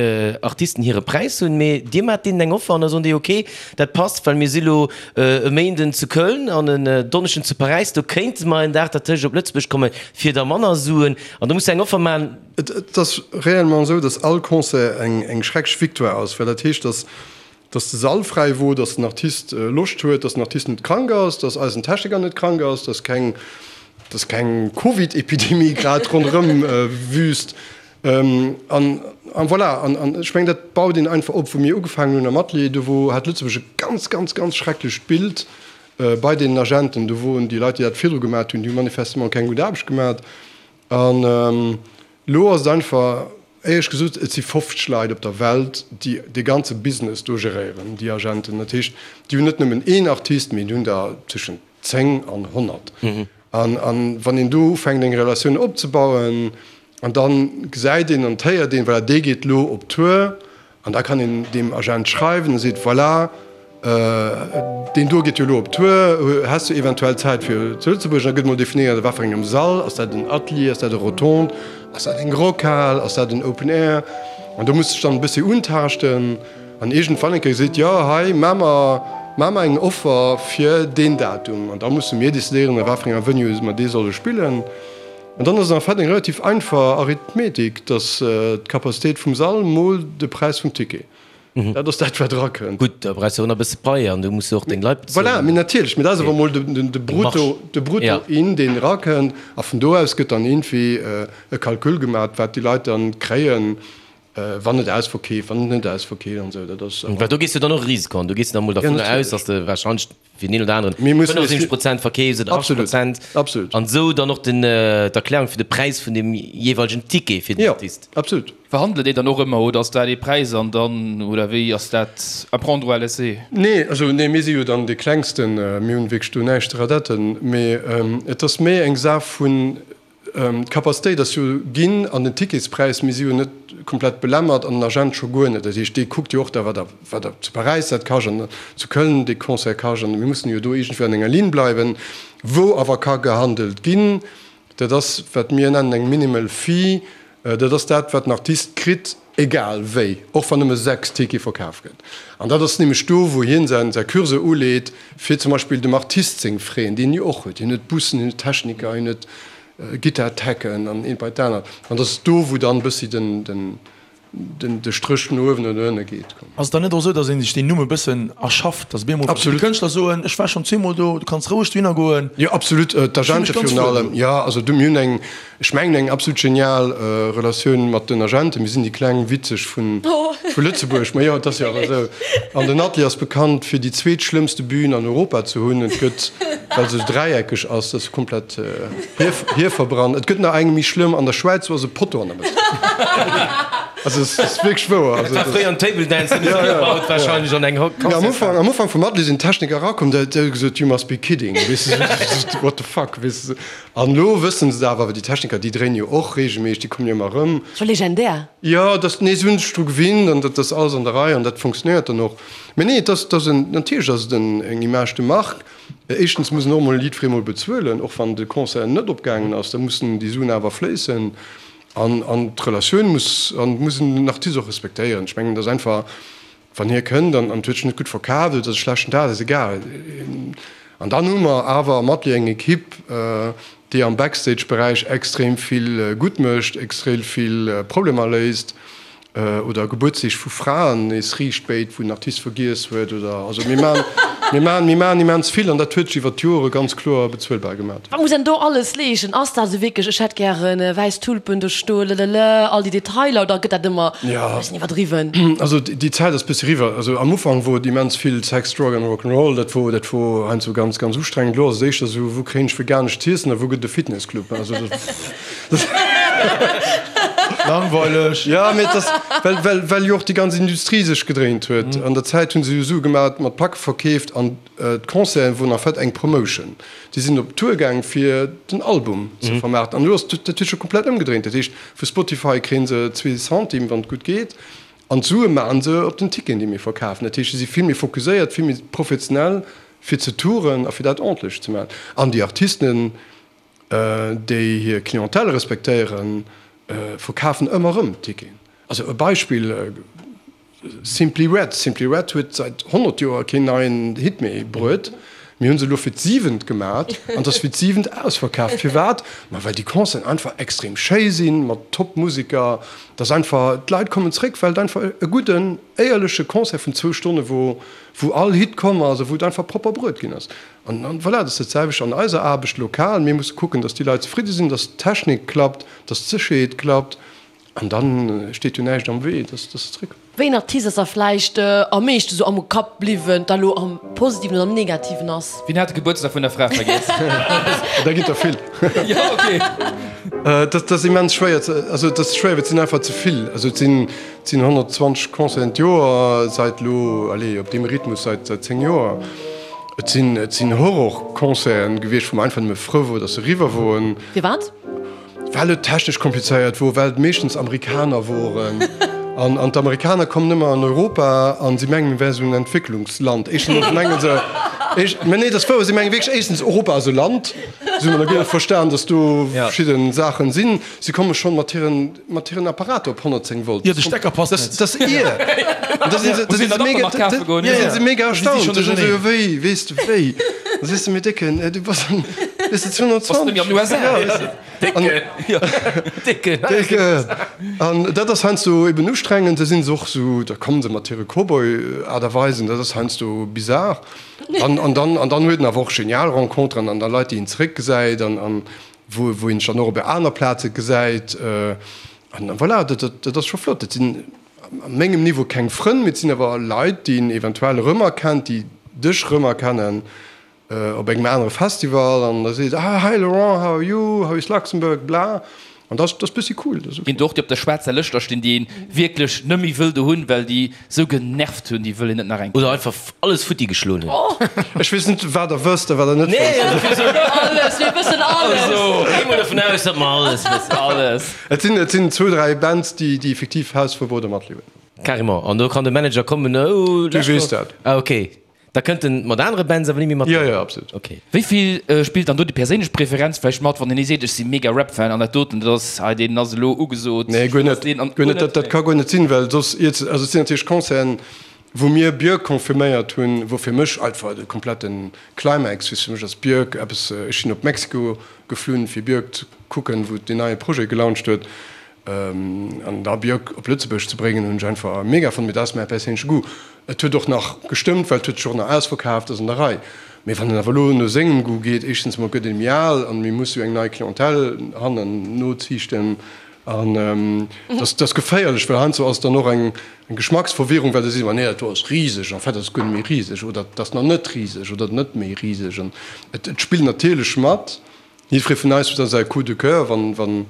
Artisten hire Präis hunn, mee dir maacht deenen eng Offer an da soen déi, ok, dat passt, well mir si lo e Méinden zu Köln an en Donneschden zu Paräis, do kéinte mer en Dag dertëscht op Lëtzebuerg kommen, fir da manner Suen. An do muss de eng Offer maachen. Et ass réellement esou, datt all Concert eng schrecklech Victoire ass, well dat heescht, datt datt de Sall fräi wor, datt den Artist Loscht huet, datt den Artist net krank ass, datt eisen Techniker net krank ass, datt keng datt keng Covid-Epidemie grad ronderëm wüst. An an voilà, an an ech mengen, dat baut een einfach op. Wou mir ugefaangen hunn am Atelier, do wor hat Lëtzebuerg e ganz, ganz, ganz schrecklecht Bild bei deenen Agenten. Do woren déi Leit, déi dat virdru gemat hunn, déi hu manifestement keng gutt Aarbecht gemat. An elo ass et einfach, éierlech gesot, et si 50 Leit op der Welt, déi dee ganze Business do geréieren, déi Agenten. Dat heescht, déi hunn net nëmmen een Artist, mee déi hunn der tëschent 10 an 100. An wann een do ufänkt eng Relatioun opzebauen an da gesäit een an héiert een, voilà, dee geet elo op Tour an da kann een deem Agent schreiwen a seet, voilà. Deen do geet jo elo op Tour, häss du eventuell Zäit fir zu Lëtzebuerg? Da gëtt mol definéiert, a wat fir engem Sall, ass dat en Atelier, ass dat e Rotonde, ass dat eng Rockhal, ass dat en Open Air? An do muss de dech dann e bëssi untaaschten an iergendwann eng Kéier seet, jo hei, maa mer, maa mer eng Offer fir deen Datum. An da musse mir decidéieren, a wat fir enger Venue mer dee solle spillen. An dann ass et en fait eng relativ einfach Arithmetik, dass d'Capacitéit vum Sall mol de Präis vum Ticket. Dat ass dat, wat erakënnt. Gutt, da brauchs de och nach e bësse Pai an du muss jo och deng Leit bezuelen. Voilà, mee natierlech, mee dat ass awer emol de Brutto, de Brutto in, deen erakënnt. A vun do aus gëtt dann iergendwéi e Calcul gemaach, wat déi Leit dann kréien, wann et ausverkeeft, wann et net ausverkeeft an esou. Dat ass. Well do gees du dann och e Risiko an. Du gees dann emol dervunner aus, datt de warscheinlech fir den een oder aneren 75 Prozent verkeefs oder 80 Prozent. Absolut. An esou dann och den, d'Erklärung fir de Präis vun dem jeeweilegen Ticket fir den Artist. Jo, absolut. Verhandelt Dir dann och ëmmer oder ass dat ee Präis an dann, oder wéi ass dat à prendre ou à laisser? Nee, also nee, mir si jo dann dee klengsten, mir hunn wierklech do näischt ze radetten, mee et ass méi eng Saach vun, D'Capacitéit ass jo ginn an den Ticketspräis, mir si jo net komplett belämmert an den Agent scho guer net. Dat heescht, dee kuckt jo och da, wat der, wat der zu Paräis dat kascht an zu Köln dee Concert kascht an mir mussen jo do iergendwéi an enger Linn bleiwen. Wou awer ka gehandelt ginn, dat ass, wat mir nennen eng minimal fee, dat ass dat, wat den Artist kritt, Egal wéi, och wann nëmme 6 Tickete verkaf gëtt. An dat ass nämlech do, wou hien säin säi Curseur uleet, fir zum Beispill dem Artist seng Frais, déi en jo och huet, hien huet Bussen, hien huet Techniker, hien huet Gittar-Techen an eent bei d'anert. An dat ass do, wou dann e bëssi den den den de Stréch no uewen oder no ënne geet. Ass et dann net och esou, datt ee sech deen Numm e bëssen erschafft, datt op eemol verschidde Kënschtler soen, ech war schonn zweemol do, du kanns roueg dohinner goen? Jo, absolut, d'Agente virun allem. Jo, also du, mir hunn eng, Ech mengen eng absolut genial Relatioun mat den Agenten. Mir sinn déi kleng Witzeg vu Lëtzebuerg. Ma jo, et ass jo awer esou. An den Atelier ass bekannt fir déi zweetschlëmmste Bühn an Europa ze hunn. Et gëtt, well se esou dräieckeg ass, dat ass komplett hierverbrannt. Et gëtt nach eng méi schlëmm an der Schwäiz, do ass e Potto an der Mëtt. Also et ass wierklech wouer. Dat war fréier en Table Dance, deen hu se gebaut warscheinlech an eng Concertshal. Am Ufank, am Ufank vum Atelier sinn d'Techniker erakomm, déi hu gesot, You must be kidding, weess de, what the fuck, weess de. An elo wëssen se et awer, well déi Techniker, déi dréinen jo och reegelméisseg, déi kommen jo ëmmer erëm. Scho legendär. Jo, dass, nee, se hunn sech dru gewinnt an dat ass alles an der Rei an dat funktionéiert dann och. Mä nee, et ass, et ass en, natierlech ass et en, eng Image de marque. Éischtens muss en och emol jiddweree mol bezuelen, och wann de Concert net opgaangen ass, da mussen déi Suen awer fléissen. An, an d'Relatioun muss, an muss en den Artist och respektéieren. Ech mengen, et ass einfach, Wann hie kënnt an et huet sech net gutt verkaaft oder et ass e schlechten Dag, dat ass egal. An dann hu mer awer am Atelier eng Ekipp, déi am Backstage-Beräich extrem vill gutt mécht, extrem vill Problemer léist oder Gebuertsdeeg vu Fraen nees riicht béit, wou den Artist vergiess huet oder, also mir maachen, mir maachen, mir maachen immens vill an dat huet sech iwwer d'Jore ganz kloer bezuelbar gemat. Wat muss een do alles leeschten? Ass dat esou wierklech, ech hätt gären wäiss Tulpen do stoen, lelele, all déi Detailer, oder gëtt dat ëmmer e bëssen iwwerdriwwen? Also déi Zäit ass bëssi eriwwer. Also am Ufank wor et immens vill Sex, Drug and Rock 'n' Roll, dat wor, dat wor heiansdo ganz, ganz ustrengend. Elo ass et éischter esou, wou kréien ech veganescht z'iessen a wou gëtt et e Fitnessclub? Also dat. Langweileg. Jo, mee et ass, well, well, well jo och déi ganz Industrie sech gedréint huet. An der Zäit hu se jo Sue gemat mat Packe verkeeft an d'Concerten woren en fait eng Promotion. Déi sinn op Tour gaang fir den Album ze vermaarten. An elo ass dat huet scho komplett ëmgedréint. Dat heescht, vu Spotify kréie se zwee Centime, wann et gutt geet, an d'Sue maache se op den Ticketen, déi mir verkafen. Dat heescht, se si vill méi fokuséiert, vill méi professionell fir ze touren a fir dat ordentlech ze maachen. An déi Artisten, déi hir Clientèle respektéieren, verkafen ëmmer erëm Ticketen. Also e Beispill, Simply Red, Simply Red huet säit 100 Joer keen neien Hit méi bruet. Mir hunn se elo fir d'siwent gemat an et ass fir d'siwent ausverkaaft. Firwat? Ma well déi Concerten einfach extrem schéi sinn, mat top Museker. Et ass einfach, d'Leit kommen zréck, well et einfach e gudden, éierleche Concert vun zwou Stonne wor, wou all Hit komm ass a wou et einfach propper bruet ginn ass. An voilà, dat ass dat selwecht an eiser Aarbecht lokal. Mir musse kucken, datt déi Leit zefridde sinn, datt d'Technik klappt, datt d'Sécherheet klappt. An dann steet jo näischt am Wee, dass se zréck. Wéi een Artist ass der vläicht am meeschte sou am Kapp bliwwen, dat elo am positiven oder am negativen ass? Wien hat de Gebuertsdag vun der Fra vergiess? Da ginn der vill. Jo, ok. Dat ass immens schwéier ze, also et ass schwéier, well et sinn einfach ze vill. Also et sinn, et sinn 120 Concerten d'Joer seit elo, allez, op deem Rhythmus seit, seit 10 Joer. Et sinn, et sinn Horrorconcerten gewiescht, wou mer einfach nëmme frou wor, dass se eriwwer woren. Firwat? Well et technesch komplizéiert wor, well et meeschtens Amerikaner woren. An, an d'Amerikaner kommen ëmmer an Europa an si mengen, mir wäre sou en Entwécklungsland. Éischtens mengen se, éischt, mä nee, dat ass wouer, si mengen wierklech, éischtens, Europa ass e Land, si hunn nach guer net verstan, datt do verschidde Saachen sinn. Si komme schonn mat hiren, mat hiren Apparater op 110 Volt. Jo, de Stecker passt net. Dat ass ier. An da sinn se, da sinn se mega, da sinn se mega erstaunt. Da sinn se jo, wéi, weess de, wéi? Da sees de, mee Décken, du bass an, weess de, 220. Bass net méi an den USA. Ja, weess de. Décken. Décken. An dat ass heiansdo eben ustrengend. Da sinn se och esou, da komme se mat hire Cowboy-Aart a Weisen, dat ass heiansdo bizar. An, an dann, an dann huet en awer och genial Renconteren an da Leit, déi een zeréckgesäit an, an wou, wou een sech dann och op aner Plaze gesäit. An voilà, dat, dat, dat ass scho flott. Dat sinn a mengem Niveau keng Frënn, mee et sinn awer Leit, déi een eventuell erëmerkennt, déi dech erëmerkennen. Op engem anere Festival an da seet ah hi Laurent, how are you, how is Luxembourg, bla an dat ass bëssi cool. Dat ass ok. Ginn et och déi op der schwaarzer Lëscht da stinn, déi een wierklech net méi wëll do hunn, well déi sou genervt hunn, déi wëll een net nach eng Oder einfach alles futti geschloen hunn. Ech weess net wat der wësst a wat der net wësst. Alles, mir wëssen alles. Also gi mol dovun aus, datt mer alles wëssen. Alles. Et sinn et sinn zwou, 3 Bands déi déi effektiv Hausverbuet a matliewen. Carrément, an do kann de Manager kommen, oh Du weess dat. Ah ok. Da kënnt en mat anere Bands awer ni méi mat? Jo, jo, absolut. Ok. Wéi vill spillt dann do déi perséinlech Preferenz vläicht mat, wann een ee seet, ech si mega Rap-Fan an dat doten, dat ass hei, deen ass elo ugesot? Nee, guer net, guer net. Dat ka guer net sinn, well soss iert se. Also et sinn natierlech Concerten, wou mir Björk confirméiert hunn, wou fir mech einfach de kompletten Climax, weess, fir mech ass Björk eppes, ech sinn op Mexiko geflunn, fir Björk ze kucken, wou deen neie Projet gelauncht huet. An da Björk op Lëtzebuerg ze bréngen, hunn ech einfach mega fonnt. Mee dat ass mäi perséinleche Goût. Et huet och nach gestëmmt, well et huet sech och nach ausverkaaft, ass an der Rei. Mee wann en awer elo no sengem Goût geet, éischtens emol gëtt ee méi al an mir musse jo eng nei Clientèle hannen noziichten. An dat ass geféierlech, well heiansdo ass et dann och eng Geschmacksverwirrung, well da seet een, nee, dat do ass riseg, en fait ass et guer net méi riseg oder et ass nach net riseg oder net méi riseg. An et spillt natierlech mat. Jiddweree vun eis huet da säi Coup de coeur, wann, wann,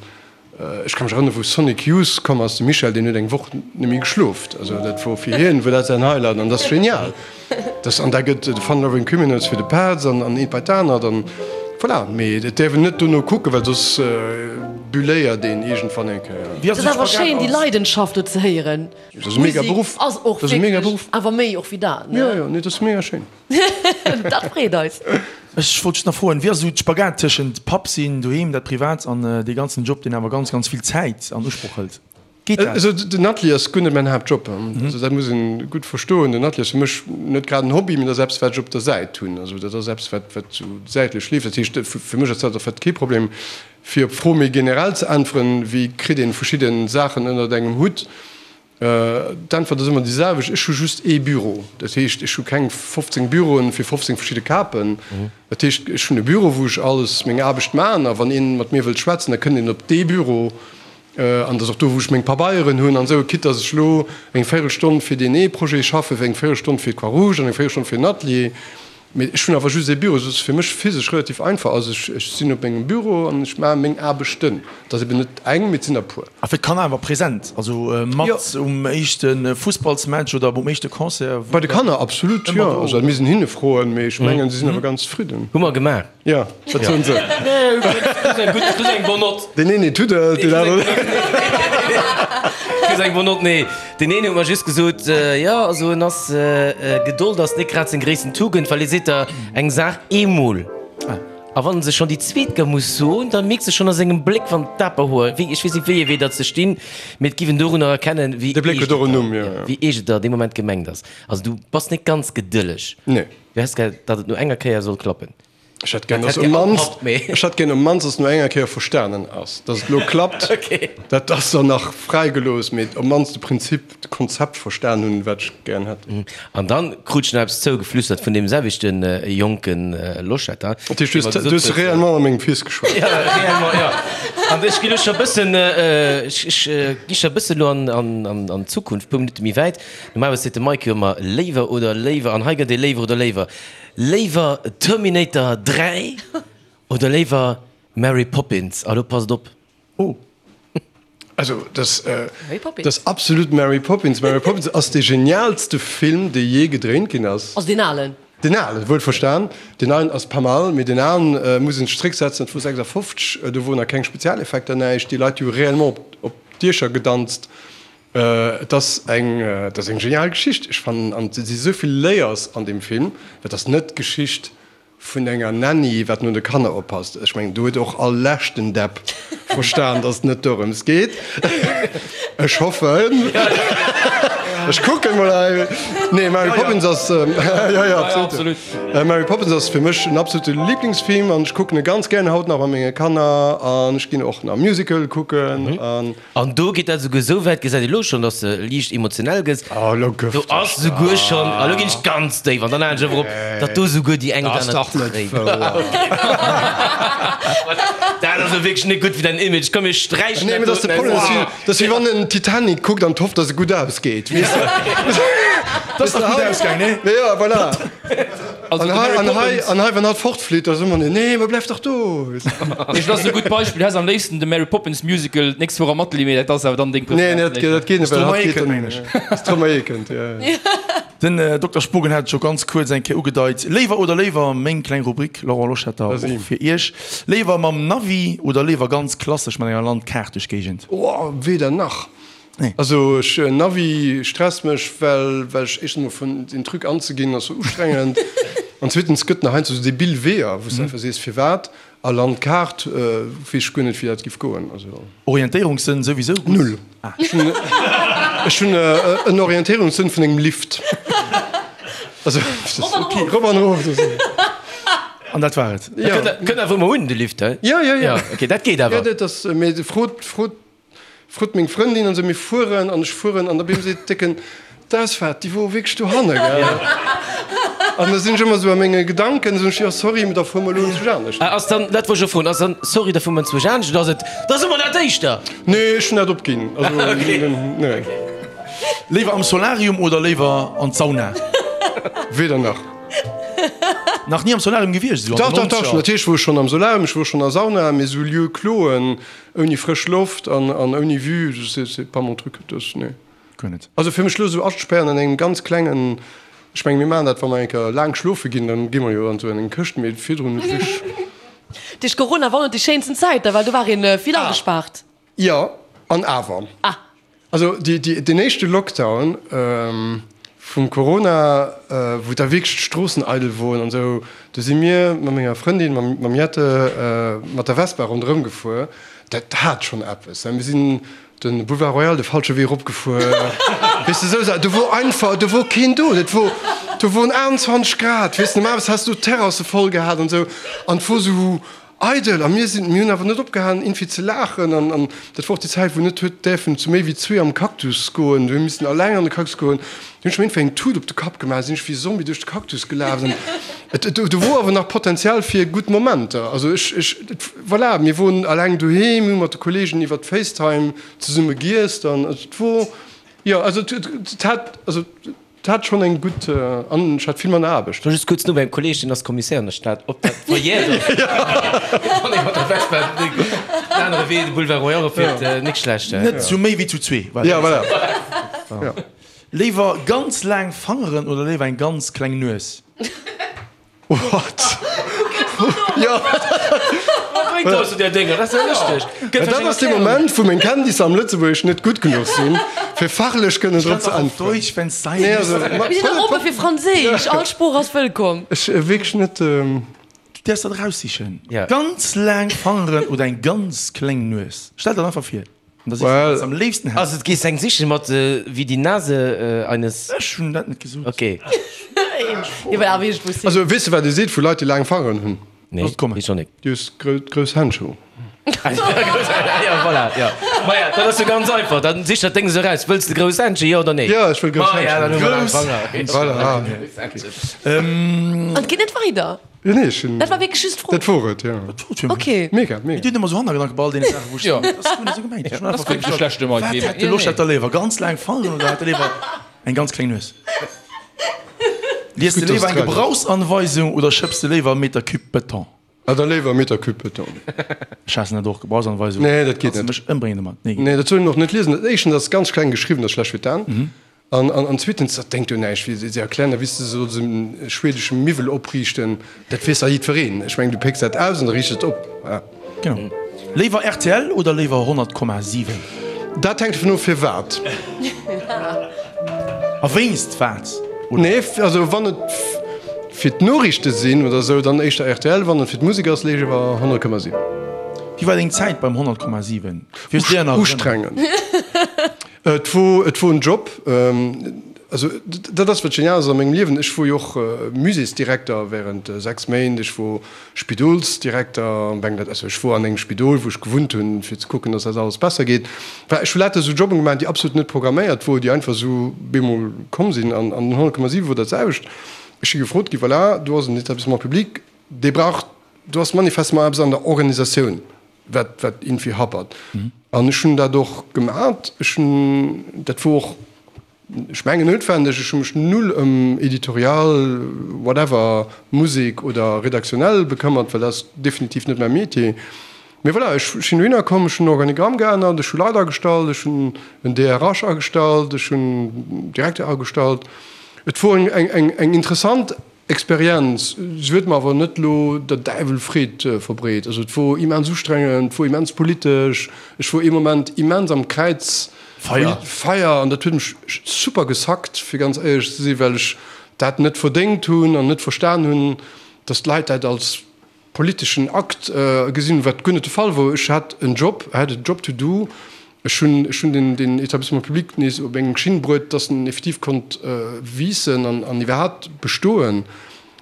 ech ka mech erënneren, wou Sonic Youth komm ass, de Michel, deen huet eng Woch net méi geschloft. Also dat wor fir hien, wor dat säin Highlight an dat ass genial. Dat, an da gëtt de Fun Loving Criminals fir de Petz an, an eent bei d'anert an voilà. Mee et däerf een net dono kucken, well soss bulléiert een iergendwann eng Kéier. Et ass awer schéin, déi Leidenschaft do ze héieren. Dat ass e mega Beruff. Ass och wierklech, awer méi och wéi dat, ne? Jo, jo, nee, dat ass mega schéin. Dat freet eis. Ech wollt just nach froen, wéi ass esou d'Spagat tëschent Papp sinn, doheem, dat Privat an dee ganzen Job, deen awer ganz, ganz vill Zäit an Usproch hëlt? Geet dat? Also den Atelier ass guer net mäin Haaptjob. Also dat muss een gutt verstoen. Den Atelier ass fir mech net grad en Hobby, mee dat ass eppes wat ech op der Säit hunn. Also dat ass eppes wat wat sou säitlech leeft. Dat heescht fir mech ass dat en fait kee Problem. Fir op d'Fro méi generell ze äntweren, wéi kritt een verschidden Saachen ënnert engem Hutt? D'Äntwert ass ëmmer déi selwecht, Ech hu just ee Büro. Dat heescht, ech hu keng 15 Büroen fir 15 verschidde Kapen. Dat heescht, ech hunn e Büro, wou ech alles meng Aarbecht maachen. A wann ee mat mir wëllt schwätzen, da kënnt een op dee Büro. An dat ass och do, wou ech meng Pabeieren hunn an esou. Quitte datt ech elo eng Véirelstonn fir deen ee Projet schaffen, eng Véirelstonn fir d'Croix-Rouge an eng Véirelstonn fir den Atelier. Mee ech hunn awer just ee Büro, esou dass et fir mech physesch relativ einfach ass. Ech ech sinn op mengem Büro an ech maache meng Aarbechten. Et ass eben net eng, mee et sinn der e puer. A fir d'Kanner awer present, also mat um éischte Fussballsmatch oder um éischte Concert? Bei de Kanner absolut, jo. Also dat misst een hinne froen, mee ech mengen, si sinn awer ganz zefridden. Hu mer gemaach. Jo, wat soen se? Kriss eng gutt, kriss eng bonne Note. Deen een huet tuddelt, deen aneren. Kriss eng bonne Note, nee. Deen een huet mer just gesot, jo, also en ass, Gedold ass net grad seng gréissten Tugend, well e seet der eng Saach eemol, a wann en se schonn déi zweet Kéier muss soen, da mierks de schonn a sengem Bléck, wann d'Aperhoer, wéi, ech weess net wéi ee Wee datt se stinn, mee et giff en dorunner erkennen, wéi eescht et der dee Moment gemengt ass. Also du bass net ganz gedëlleg. Nee. Du häss gär, datt et no enger Kéier soll klappen. Ech hätt gär, dass um mannst, ech hätt gär um mannst, dass no enger Kéier verstanen ass, dass et elo klappt. Dat ass dann nach fräigelooss, mee um mannst de Prinzip, de Konzept verstan hunn, wat ech gären hätt. An dann krut ech nach eppes zougeflüstert vun deem selwechte jonke Loschetter. Dat heescht, du hues, du hues réellement a mengem Fils geschwat? Ja, réellement, jo. An ech ginn elo scho e bëssen, ech, ech gi scho e bëssen elo an, an, an d'Zukunft, e puer Minutte méi wäit. Normalerweis seet de Mike jo ëmmer léiwer oder léiwer, an hei gëtt ee léiwer oder léiwer. Léiwer Terminator 3 oder léiwer Mary Poppins? A lo passt op. Oh. Also dat ass absolut Mary Poppins. Mary Poppins ass dee genialste Film, dee jee gedréint ginn ass. Also deen alen? Deen alen, wuel verstan. Deen neien ass pas mal, mee deen alen muss een sech zrécksetzen, dat wor 56, do woren nach keng Spezialeffekter, näischt. Déi Leit, déi hu réellement op d'Diecher gedanzt. Et ass eng, et ass eng genial Geschicht. Ech fannen, an et si sou vill Layers an deem Film. Et ass net d'Geschicht vun enger Nanny, wat no de Kanner oppasst. Ech mengen, do huet och all leschten Depp verstan, dass et net dorëms geet. Ech hoffen. Ech kucken mol hei. Nee, Mary Poppins ass, jo, jo, absolut. Mary Poppins ass fir mech en absolute Lieblingsfilm an ech kucken e ganz gären haut nach mat menge Kanner an ech ginn och nach Musical kucken an. An do geet dat esouguer esou wäit, gesäit ee lo schonn, dass de liicht emotionell gëss. Do ass esouguer schonn, a lo ginn ech ganz déif, an dann halen ech awer op, datt do esouguer déi eng oder aner Tréin. Dat ass elo wierklech net gutt fir däin Image. Komm, mir sträichen dat doten aus. Dat ass wéi wann en Titanic kuckt an hofft, datt e gutt ausgeet, weess de. Dat ass dach gutt ausgaang, nee? Jo, voilà. An hei, an hei, an hei, wann hatt fortflitt, da soe mer, Nee, ma bleift dach do! Ech, dat ass e gutt Beispill. Du häss am léifsten de Mary Poppins Musical d'nächst Woch am Atelier, mee dat ass awer dann deng Nee, nee, dat, dat geet net, well hatt geet dann. Stromae kënnt, jo, jo. Den Dokter Spogen hat et scho ganz kuerz eng Kéier ugedeit. Léiwer oder léiwer, meng kleng Rubrik, Laurent Loschetter, och fir Iech. Léiwer mam Navi oder léiwer ganz klassesch mat enger Landkaart duerch d'Géigend? Oh, weder nach. Also ech Navi stresst mech well well ech éischtens mol vun den Truc anzeginn ass sou ustrengend an zweetens gëtt nach heiansdo sou debil Weeër wou s de einfach sees firwat a Landkaart weess ech guer net wéi dat giff goen also. Orientéierungssënn souwisou gutt? Null. Ech hunn ech hunn en Orientéierungssënn vun engem Lift. Also rop an erof. An dat war et? Jo. Kënnt awer ëmmer un de Lift he? Jo jo jo. Ok dat geet awer. Jo dat ass mee frot frot Frot meng Frëndin an sou, mir fueren an ech fueren an da bim seet décken, d'Ausfaart déi wor wierklech dohanne gell. An da sinn ech ëmmer sou a menge Gedanken, soen ech, jo sorry, mee da fuere mer elo enzwousch anescht. Ah ass dann, dat wollt ech och froen, ass dann sorry, da fuere mer enzwousch anescht oder ass et, da soe mer dat éischter? Nee, ech hunn dat opginn, also nee. Léiwer am Solarium oder léiwer an d'Sauna? Weder nach. Nach ni am Solarium gewiescht, esou an Dach, den dach, dach, Nonzeger? natierlech wor ech schonn am Solarium, ech wor schonn a Sauna, mee sou Lieu closen Ouni frësch Loft an ouni Vue, c'est pas mon truc, das, nee. Guer net. Also fir mech lo sou aspären an engem ganz klengen, ech mengen mir maachen dat wa mer eng Kéier laang schlofe ginn, dann gi mer jo an sou eng Këscht, mee virdrun hu ech. Duerch Corona waren et déi schéinsten Zäiten, well do war een vill agespaart. Jo, an awer. Ah. Also deen éischte Lockdown vum Corona, wou da wierklech d'Stroossen eidel woren an esou, do si mir mat menger Frëndin, mam Jette, mat der Vespa ronderëm gefuer. Dat hat schonn eppes. Mir sinn de Boulevard Royal de falsche Wee eropgefuer, weess de, esou Saachen. Do wor einfach, do wor keen do. Dat wor, do woren 28 Grad, weess de, normalerweis häss du d'Terrasse voll gehat an esou. An et wor esou Eidel! A mir sinn, mir hunn awer net opgehalen iergendwéi ze laachen. An, an dat wor och déi Zäit, wou net huet däerfen zu méi wéi zwee am Cactus goen. Du hu missen alleng an de Cactus goen. Du hunn ech mir iergendwéi eng Tut op de Kapp gemaach, sinn ech wéi e Zombie duerch de Cactus gelaf. An et, et, do wor awer nach Potenzial fir gutt Momenter. Also ech, ech, et, voilà, mir woren alleng doheem, mir hu mat de Kollegen iwwert FaceTime zesumme giesst an et wor, jo, also et, et, et hat, also. Et hat schonn eng gutt an ech hat vill manner Aarbecht. Ech war just kuerz no beim Kolleg, deen ass Commissaire an der Stad, ob dat verjährt ass, wann ee mat der Vespa den anere Wee, de Boulevard Royal eroffiert. Nik schlecht, he? Net zu méi wéi zu zwee. Ja, voilà. Léiwer ganz laang Fangeren oder léiwer eng ganz kleng Nues? What? Jo. Wat bréngt der zu där Dénger? Dat ass jo lëschteg. Gëtt Dat ass dee Moment, wou meng Kenntnisser am Lëtzebuergesch net gutt genuch sinn, fir fachlech kënnen drop ze äntweren. Deutsch, wenn's sein Nee, muss. also, ma, Mir sinn och oppe fir Franséisch, all Sprooch ass wëllkomm. Ech wierklech net. Du däerfs dat eraussichen. Ganz laang Fangeren oder eng ganz kleng Nues? Stell der dat einfach vir. An da sichs du, wat s am léifsten häss. Also, et gees eng sichen mat wie die Nase eines. Ech hunn dat net gesot. Ok. Also, weess de, wat ee seet vu Leit, déi laang Fangeren hunn? Nee, Looss et kommen. weess och nik. Déi hues grouss Händschen. Ja, voilà, ja. Maja, dat ass jo ganz einfach. Dann sich dat Déng esou eraus. Wëlls de grouss Händschen, jo oder nee? Jo, ech wëll grouss Maja, Händschen. dann hu mer laang Grouss Fanger. Voilà. An et geet net weider. Jo, nee, ech hunn. Dat war wierklech just d'Fro. Dat wor et, jo. Ok. Mega, mega. Mir dinn ëmmer sou Hannergedanke bei all deene Saachen, wou ech Jo. soen, dat ass guer net esou gemengt. Ech hunn Dat einfach ass wierklech e schlechte Wat Mike. hätt de Loschetter léiwer, ganz laang Fangeren oder hätt e léiwer eng ganz kleng Nues? Lies de Gutt, dass léiwer eng et grad ass. Gebrauchsanweisung oder schëpps de léiwer e Meter Cube Beton? Ah, da léiwer e Meter Cube Beton. Ech haassen dat och, Gebrauchsanweisung. Nee, dat geet Kanns de net. mech ëmbréngen domat? Nee, geet Nee, dat soll een och net liesen. Éischtens ass et ganz kleng geschriwwen, dat ass schlecht fir d'Aen. An, an, an zweetens, dat denkt jo näischt, wéi se erklären, da wéi s de solls e schwedesche Miwwel opriichten, dat weess dach jiddwereen. Ech mengen, du pécks dat aus an da riichts et op. Genau. Léiwer rtl oder léiwer 100,7? Dat hänkt dovun of, firwat. A wéinst wat? Nee, also wann et fir d'Noriichte sinn oder esou, dann éischter rtl, wann et fir d'Musek ass, léiwer 100,7. Wéi war deng Zäit beim 100,7? Fir s dir an Erënnerung. Ustrengend. Et wor, et wor en Job. Also dat ass wat genial ass a mengem Liewen, ech wor jo och Muséesdirekter während 6 Méint, ech wor Spidolsdirekter, also ech wor an engem Spidol wou ech gewunnt hunn, fir ze kucken, datt dat alles besser geet. Enfin, ech hu lauter esou Jobben gemaach, déi absolut net programméiert wor, déi einfach esou bemol komm sinn. An an den 100,7 wor dat selwecht. Ech si gefrot gi, voilà, do ass en Établissement public, dee brauch, do ass manifestement eppes an der Organisatioun, wat wat iergendwéi happert. An ech hunn dat och gemat. Ech hunn, dat wor och, ech mengen noutwendeg, ech hu mech null ëm Editorial, whatever, Musek oder redaktionell bekëmmert, well dat ass definitiv net mäi Metier. Mee voilà, ech sinn dohinner komm, ech hunn den Organigramm geännert, ech hu Leit agestallt, ech hunn en DRH agestallt, ech hunn en Direkter agestallt. Et wor eng eng eng interessant Experienz. Se huet mer awer net elo der Däiwel Freed verbreet. Also et wor immens ustrengend, et wor immens politesch, ech wor ee Moment immens am Kräiz Feier. Feier an dat huet mech super gesackt, fir ganz éierlech ze sinn, well ech dat net verdéngt hunn an net verstan hunn, datt d'Leit dat als politeschen Akt gesinn, wat guer net de Fall wor. Ech hat en Job, I had a job to do. Ech hunn, ech hunn den, den Établissement public nees op eng Schinn bruet, dass en effektiv konnt wiissen an, an iwwerhaapt bestoen.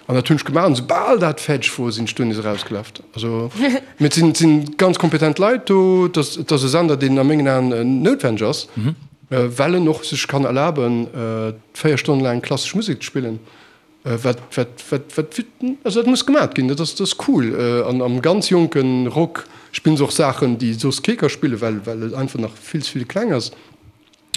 An dat hunn ech gemaach. An soubal dat fäerdeg wor, sinn ech do nees erausgelaf. Also, mee et sinn, et sinn ganz kompetent Leit do. Et ass, et ass e Sender, deen a mengen Aen noutwenneg ass, well en och sech kann erlaben, 4 Stonnen laang klassesch Musek ze spillen. Wat, wat, wat, wat, also dat muss gemat ginn, dat ass, dat ass cool. An am ganz jonke Rock spillen se och Saachen, déi soss kee ka spillen, well, well et einfach nach vill ze vill kleng ass.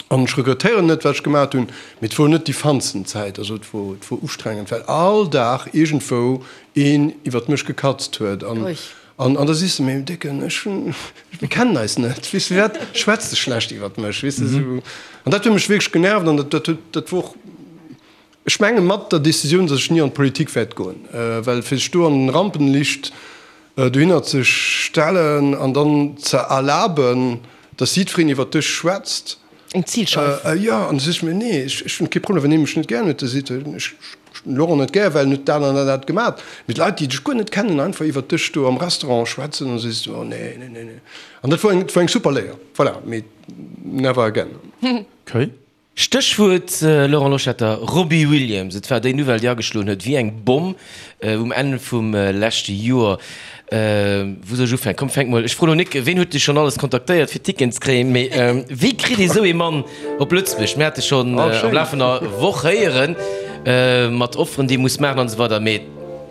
An ech regrettéieren net, wat ech gemat hunn, mee et wor net déi fannsten Zäit. Also et wor, et wor ustrengend, well all Dag iergendwou een iwwert mech gekatzt huet. An, an, an da sees de, mee Décken, ech hunn, mir kennen eis net, weess de, firwat schwätz de schlecht iwwert mech, weess de, esou. An dat huet mech wierklech genervt an dat, dat huet, dat wor och, Ech menge mat der Decisioun, datt ech ni an d'Politik wäert goen, well fir sech do an den Rampenlicht dohinner ze stellen an dann ze erlaben, datt jiddwereen iwwert dech schwätzt. Eng Zilscheif. Jo, an da sot ech mir, nee, ech hunn kee Problem, wann ee mech net gär huet, da seet en, ech hunn den Laurent net gär, well en huet dat an dat dat gemat. Mee d'Leit, déi dech guer net kennen, einfach iwwert dech do am Restaurant schwätzen, da sees du, oh nee, nee, nee, nee. An dat wor eng, dat wor eng super Léier, voilà, mee never again. Okay. Stéchwuert Laurent Loschetter, Robbie Williams. Et war déi Nouvelle, déi ageschloen huet wéi eng Bomm um Enn vum leschte Joer. Wou soll ech ufänken? Komm, fänk mol. Ech froen elo Nick, ween huet dech schonn alles kontaktéiert, fir Ticketen ze kréien? Mee wéi kritt ee sou ee Mann op Lëtzebuerg? Mir hate schonn am Laf vun der Woch héieren, mat Offeren, déi ee muss maachen an esou weider. Mee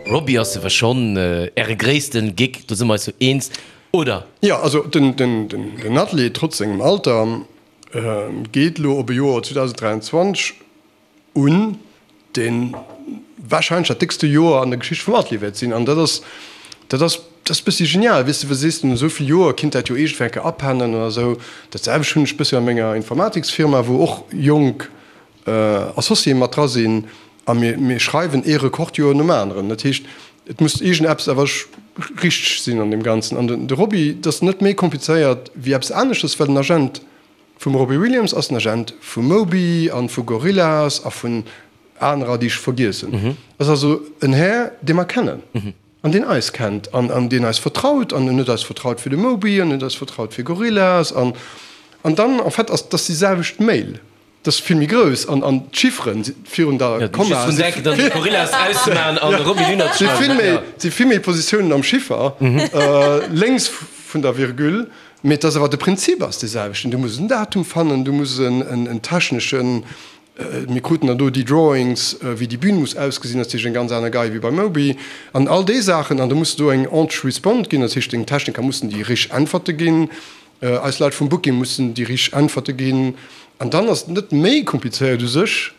Robbie ass ewer schonn Äre gréissten Gig, do si mer eis jo eens, oder? Jo, also den Atelier, trotz sengem Alter, Geet elo op e Joer 2023 un, dee warscheinlech dat déckste Joer an der Geschicht vum Atelier wäert sinn. An dat ass, dat ass, dat ass e bëssi genial, weess de, well sees de, no esou vill Joer kinnt dat jo iergendwéi eng Kéier apennen oder esou. Dat selwecht hunn ech e bëssi a menger Informatiksfirma, wou och jonk Associéë mat dra sinn a mir, mir schreiwen ee Rekordjoer nom aneren. Dat heescht, et muss iergendeppes awer richteg sinn an deem Ganzen. An de Robbie, dat ass net méi komplizéiert wéi eppes aneschters, well den Agent vum Robbie Williams ass den Agent vum Moby an vu Gorillaz a vun anerer, déi ech vergiess hunn. Ass also en Här, dee mer kennen an deen eis kennt an an deen eis vertraut an en huet eis vertraut fir de Moby an en huet eis vertraut fir Gorillaz an an dann en fait ass dass déi selwecht Mail. Dat ass vill méi grouss an an d'Chifferen virun der Komma si vill méi Positiounen am Chiffer lénks vun der Virgule, mee et ass awer de Prinzip ass dee selwechten. Du muss en Datum fannen, du muss en techneschen, mir kruten dann do déi Drawings wéi déi Bühn muss ausgesinn, dat ass natierlech eng ganz aner Gei wéi beim Moby an all déi Saachen an da muss do eng Entreresponse ginn, dat heescht deng Techniker mussen déi richteg Äntwerte ginn. Eis Leit vum Booking mussen déi richteg Äntwerte ginn. An dann ass et net méi komplizéiert u sech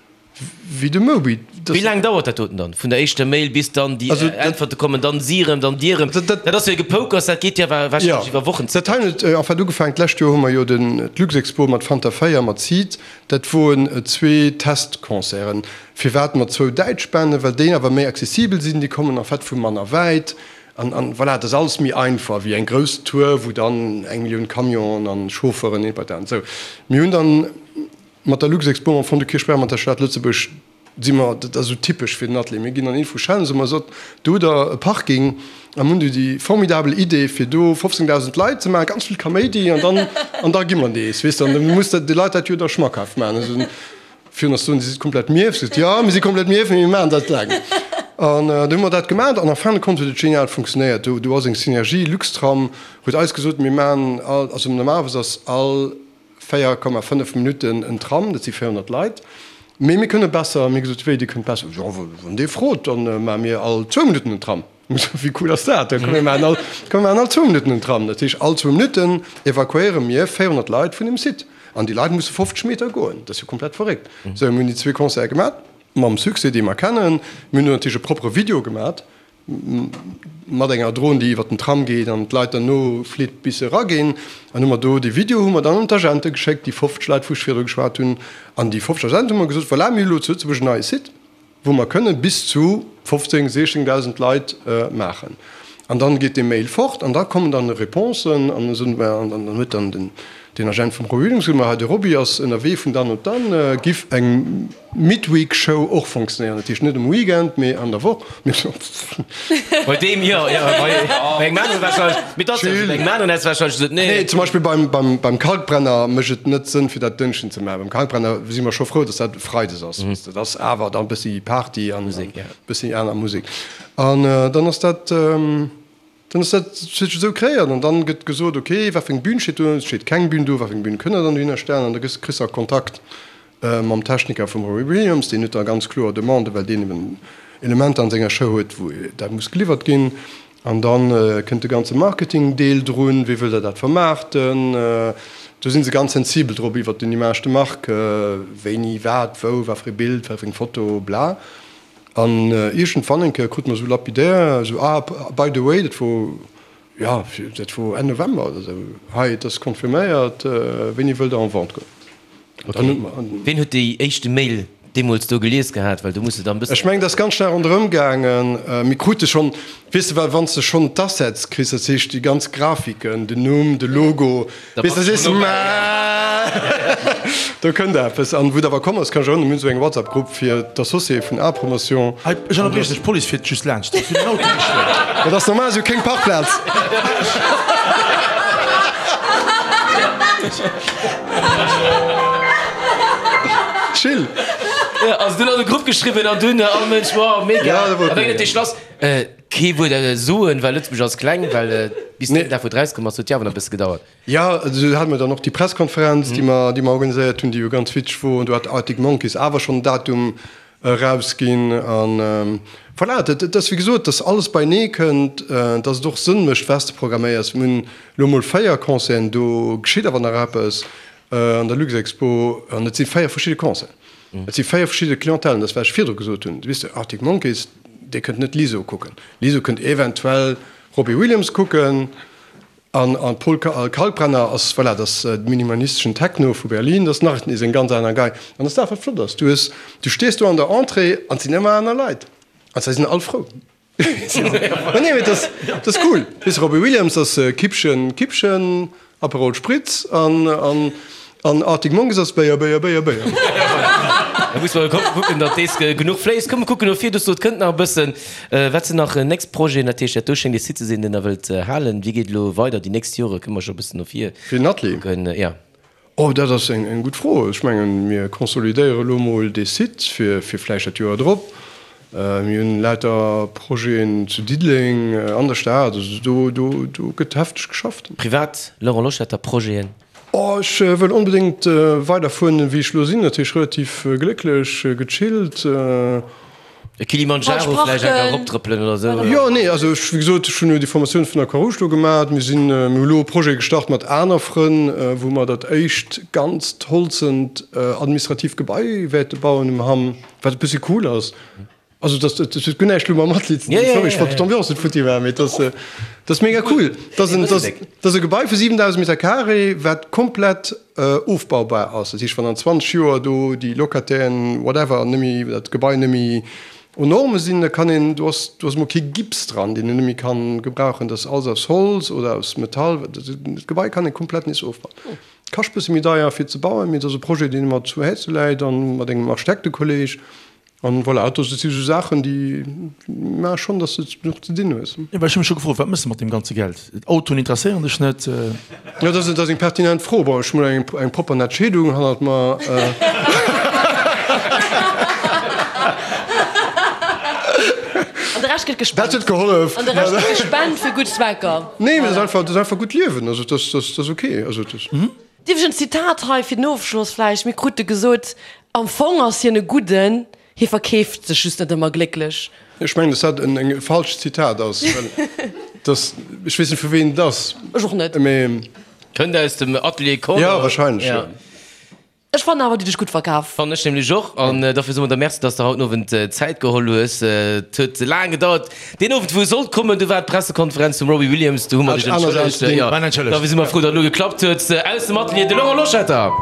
wéi de Moby. Wéi laang dauert dat doten dann, vun der éischter Mail bis dann déi Äntwerte kommen, dann si erëm, dann dir erëm? Dat ass jo e Gepoukers, dat geet jo warscheinlech iwwer Wochen. Dat hei huet en fait ugefaangen, d'lescht Joer hu mer jo den d'Luxexpo mat Fanta 4 mat Seed, dat woren zwee Testconcerten. Firwat mat zwou däitsch Banden? Well déi awer méi accessibel sinn, déi kommen en fait vu manner wäit. An, an voilà, et ass alles méi einfach wéi eng grouss Tour, wou dann eng Millioun Camionen an Chauffeuren hin und her. Sou, mir hunn dann mat der Luxexpo am Fong de Kierchberg, mat der Stad Lëtzebuerg, si mer, dat ass esou typesch fir den Atelier, mir ginn an ee vu Schellen, soe mer, sot, do hutt Der e Parking a mir hunn do déi formidabel Idee fir do 15.000 Leit ze maachen, ganz vill Kaméidi an dann, an da gi mer nees, weess de, an da muss de de Leit dat jo da schmackhaft maachen. Also virun ass soen, Dir sidd komplett mierf, sot, jo, mir si komplett mierf, mee mir maachen dat laang. An du hu mer dat gemaach an en fin de compte huet et genial funktionéiert. Do, do ass eng Synergie, Luxtram huet eis gesot, mir maachen all, also normalerweis ass all 4,5 Minutten en Tram, dat si 400 Leit. Mee mir kënne besser. Mir gesot, Wéi, Dir kënnt besser? Jo, wann Dir frot, da maache mir all zwou Minutten en Tram. Mir gesot, Wéi cool ass dat? Da komm mir maachen all, komm mir maachen all zwou Minutten en Tram. Dat heescht, all zwou Minutten evakuéiere mir 400 Leit vun dem Site. An déi Leit musse 50 Meter goen. Dat ass jo komplett verréckt. Sou, mir hunn déi zwee Concerte gemaach, mam Succès, dee mer kennen. Mir hunn do natierlech e proppere Video gemaach. Mat enger Dron, déi iwwer den Tram geet an d'Leit derno flitt bis se eraginn. An hu mer do dee Video hu mer dann un d'Agente geschéckt, déi 50 Leit, wou ech virdru geschwat hunn. An déi 50 Agente hu mer gesot, Voilà, mir hu lo zu Lëtzebuerg en neie Site, wou mer kënne bis zu 15, 16.000 Leit maachen. An dann geet dee Mail fort an da kommen dann Réponsen an esou. An dann huet dann den Agent vum Roby Williams gesot, Ma hei de Roby ass ënnerwee vun dann op dann, giff eng Midweek Show och fonctionnéieren, dat heescht net um Weekend, mee an der Woch. Bei deem jo, jo, bei engem aneren wahrscheinlech, mee dat ass jo esou, bei engem aneren häss de wahrscheinlech gesot, nee. Nee, zum Beispill beim, beim, beim Kalkbrenner mécht et net Sënn fir dat Dënschden ze maachen. Beim Kalkbrenner si mer scho frou, datt dat Freides ass, weess de, dat ass awer dann e bëssi Party an e bëssi aner Musek. An dann ass dat. Dann ass dat sech esou kreéiert an dann gëtt gesot, ok, wat fir eng Bühn steet do, et steet keng Bühn do, wat fir eng Bühn kënnt der dann dohinner stellen an da gëss, kriss de Kontakt mam Techniker vum Robbie Williams, deen huet da ganz kloer Demanden, well deen eben Elementer an senger Show huet, wou dat muss geliwwert ginn an dann kënnt de ganze Marketing-Deel drun, wéi wëllt der dat vermaarten, do si se ganz sensibel drop iwwert den Image de marque, wéini, wat, wou, wat fir e Bild, wat fir eng Foto, bla. An iergendwann eng Kéier krute mer esou lapidär esou, ah, by the way, dat wor, jo, dat wor Enn November oder esou, hei, et ass confirméiert, wéini wëllt Der en vente goen? An dann hu mer. Ween huet déi éischte Mail deemools do gelies gehat? Well do muss de dann e bëssen. Ech mengen, dat ass ganz schnell ronderëm gaangen. Mir krute schonn, weess de, well wann s de schonn d'Assets kriss, dat heescht déi ganz Grafiken, den Numm, de Logo, Weess de, sees de, Mä do kënnt eppes. An wou et awer komm ass, kann ech erënneren, mir hunn esou eng WhatsApp-Grupp fir d'Associéë vun A-Promotion. Hei, ech ënnerbrieche dech, d'Police fiert just laanscht, si hunn den Auto gestuel. Dat ass normal, si hu kéng Parkplaz. Chill. Jo, also dunn an de Grupp geschriwwen an dunn all Mënsch, wow, mega. Ja, dat wor A wéi cool. huet dee Schlass? Kee Wuert soen, well Lëtzebuerg ass kleng, well bis deen Dag wou et rauskomm ass, huet jo awer nach e bësse gedauert. Jo, esou hate mer dann och déi Presskonferenz, déi mer, déi mer organiséiert hunn, déi jo ganz witzeg wor. An do hat Arctic Monkeys awer schonn en Datum erausginn. An voilà, dat, dat ass wéi gesot, dass alles beienee kënnt, dass et och Sënn mécht, wat s de programméiers. Mir hunn elo emol 4 Concerten, do geschitt awer nach eppes an der Luxexpo an et si 4 verschidde Concerten. Et si 4 verschidde Clientèlen, dat ass wat ech virdru gesot hunn. Weess de, Arctic Monkeys, Dir kënnt net Lizzo kucken. Lizzo kënnt eventuell Robbie Williams kucken an an Paul Kalkbrenner ass, voilà, dat ass de minimalisteschen Techno vu Berlin, dat ass nach nees eng ganz aner Gei. An dat ass dat, wat flott ass. Du hues, du stees do an der Entrée an et sinn ëmmer aner Leit an se sinn all frou. Ma nee, mee dat ass, dat ass cool. Weess de, Robbie Williams ass Kippchen, Kippchen. Aperol Spritz an an an Arctic Monkeys ass Béier, Béier, Béier, Béier. Da muss mer kucken, datt dees genuch fléisst. Komm mer kucken no vir, du sot, kënnt nach e bëssen. Wat sinn nach nächst Projeten? Dat heescht, dat do schéngt ee Site ze sinn, deen Der wëllt halen. Wéi geet elo weider déi nächst Jore? Kënne mer scho e bëssen no vir Fir den Atelier? kucken? Jo. Oh, dat ass eng eng gutt Fro. Ech mengen, mir consolidéiere elo mol dee Site fir fir vläicht dat Joer drop. Mir hunn lauter Projeten zu Diddeleng, an der Stad, also do, do, do gëtt hefteg geschafft. Privat, Laurent Loschetter, Projeten? Oh, ech wëll onbedéngt weider fueren, wéi ech elo sinn. Dat heescht relativ glécklech, gechillt. E Kilimanjaro vläicht enker eroptrëppelen oder esou? Jo, nee, also ech, wéi gesot, ech hunn jo déi Formatioun vun der Croix-Rouge do gemaach. Mir sinn, mir hu elo e Projet gestart mat aner Frënn, wou mer dat éischt ganzt holzent administratiivt Gebai wäerte bauen um Hamm. Wat e bëssi cool ass. Also dat dat huet guer näischt elo mam Atelier ze dinn. Sorry, ech wollt d'Ambiance net futti maachen, mee dat ass dat ass mega cool. Dat ass en dat ass e Gebai vu 7.000 Meter carré, wat komplett ofbaubar ass. Dat heescht, wann an 20 Joer do déi Locatairen, whatever, net méi dat Gebai net méi. Aux normes sinn, da kann een, do ass, do ass emol kee Gips dran, deen een net méi kann gebrauchen, dat ass alles aus Holz oder aus Metall, dat Gebai kann ee komplett nees ofbauen. Kascht bësse méi deier fir ze bauen, mee et ass e Projet, deen mer zu Häerze läit an mat engem Architektekolleg. An voilà, dat si sou Saachen, déi maache schonn, datt s de genuch ze dinn hues. Jo, well ech hu mech scho gefrot, wat méchs de mat deem ganze Geld? Autoen interesséieren dech net? Jo, dat ass eng pertinent Fro. Bon, ech hunn eng eng propper nett Scheedung hannert mer. An de Rescht gëtt gespent. Dat huet gehollef. An de Rescht gëtt gespent fir gutt Zwecker. Nee, mee dat ass einfach, dat ass einfach gutt Liewen. Also, dat ass ok. Also, dat. Dierf ech en Zitat hei fir den Ofschloss vläicht? Mir krute gesot, am Fong ass hien e Gudden, hie verkeeft sech just net ëmmer glécklech. Ech mengen, dass dat en falscht Zitat ass, well dass, ech weess net vu ween et ass. Ech och net. Mee. Kënnt aus dem Atelier Corner. Jo, wahrscheinlech, jo. Ech fannen awer, dir hutt dech gutt verkaf. Fannen ech nämlech och. An dofir soe mer der Merci, dass de haut den Owend Zäit geholl hues. Et huet laang gedauert. Deen Owend, wou e sollt kommen, du war d'Pressekonferenz vum Robbie Williams. Do hu mer dech entschëllegt. Jo, dofir si mer frou, datt et elo geklappt huet. Aus dem Atelier, de Laurent Loschetter.